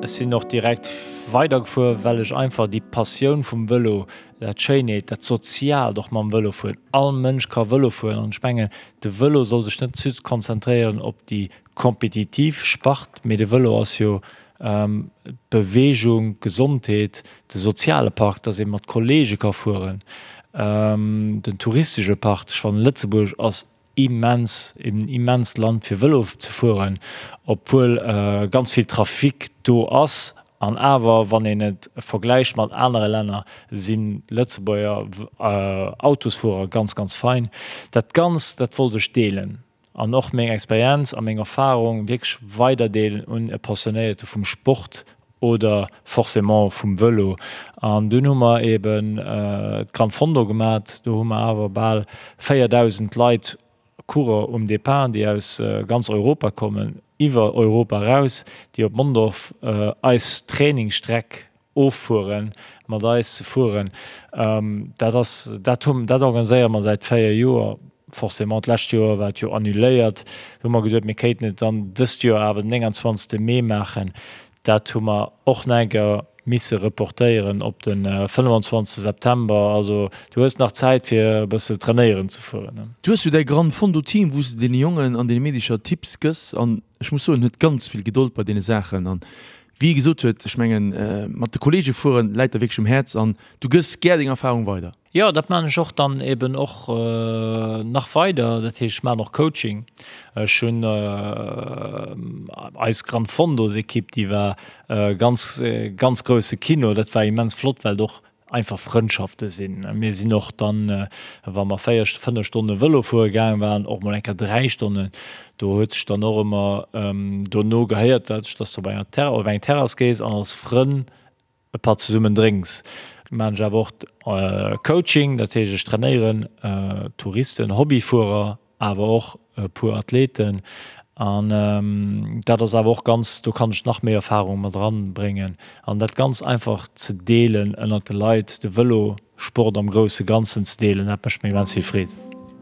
C: ech sinn och direkt weidergefuer, well ech einfach déi Passioun vum Vëlo Dat Schéineet, dat Soziaalt och mam Vëlo fueren. All Mënsch ka Vëlo fueren an ech mengen, de Vëlo soll sech net just konzentréieren op déi kompetitiv Spart, mee de Vëlo ass jo d'Beweegung, d'Gesondheet, de soziale Part, dass ee mat Kolleege ka fueren, den touristesche Part. Ech fannen, Lëtzebuerg ass immens, en immenst Land fir Vëlo ze fueren, obwuel ganz vill Trafic do ass. An awer, wann een et vergläicht mat anere Länner, sinn d'Lëtzebuerger Autosfuerer ganz, ganz fein. Dat Ganzt, dat wollt ech deelen an och meng Experienz a meng Erfarung wierklech weiderdeelen un e Passionéierte vum Sport oder forcément vum Vëlo. An dunn hu mer eben d'Gran Fondo gemat. Do hu mer awer bal 4.000 Leit, Coureur um Depart, déi aus ganz Europa kommen, iwwer Europa eraus, déi op Mondorf eis Trainingsstreck offueren, mat eis ze fueren. Dat ass, dat hu, dat organiséiere mer säit 4 Joer. Forcément, d'lescht Joer war et jo annuléiert. Do hu mer geduet, mir kéinten et dann dëst Joer awer den 29. Mee maachen. Dat hu mer och nach eng Kéier misse reportéieren op de 25. September. Also du hues nach Zäit fir e bësse trainéieren ze fueren.
B: Du hues jo däi Gran Fondo Team, wou s de deene Jongen an deene Meedecher Tipps gëss an ech muss soen, en huet ganz vill Gedold bei deene Saachen an wéi e gesot huet, ech mengen mat de Kollege fueren läit der wierklech um Häerz an du gëss gär deng Erfarung weider.
C: Jo, dat maan ech och dann eben och nach weider. Dat heescht, ech maan och Coaching. Ech hunn eis Gran Fondos Equipe, déi war ganz, ganz grousse Kino. Dat war immens flott, well et och einfach Frëndschafte sinn. Mir sinn och dann, wa mer 4, 5 Stonne Vëlo fuere gaang waren, och mol eng Kéier 3 Stonnen. Do huet sech dann och ëmmer dono gehéiert, dass du op enger Terrass, op eng Terrass gees an als Frënn e Patt zesummen drénks. Maan ech awer och Coaching, dat heescht ech trainéieren Touristen, Hobbyfuerer, awer och e puer Athleten an dat ass awer och ganz, do kann ech nach méi Erfahrung mat eran bréngen an dat ganz einfach ze deelen ënnert de Leit, de Vëlo. Sport am grousse Ganzen ze deelen, dat mécht mir immens vill Freed.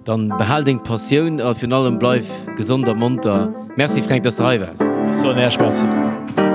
A: Dann behal deng Passioun a virun allem bleif gesond a monter. Merci Fränk, dass de hei waars.
C: Ech soen Äech Merci.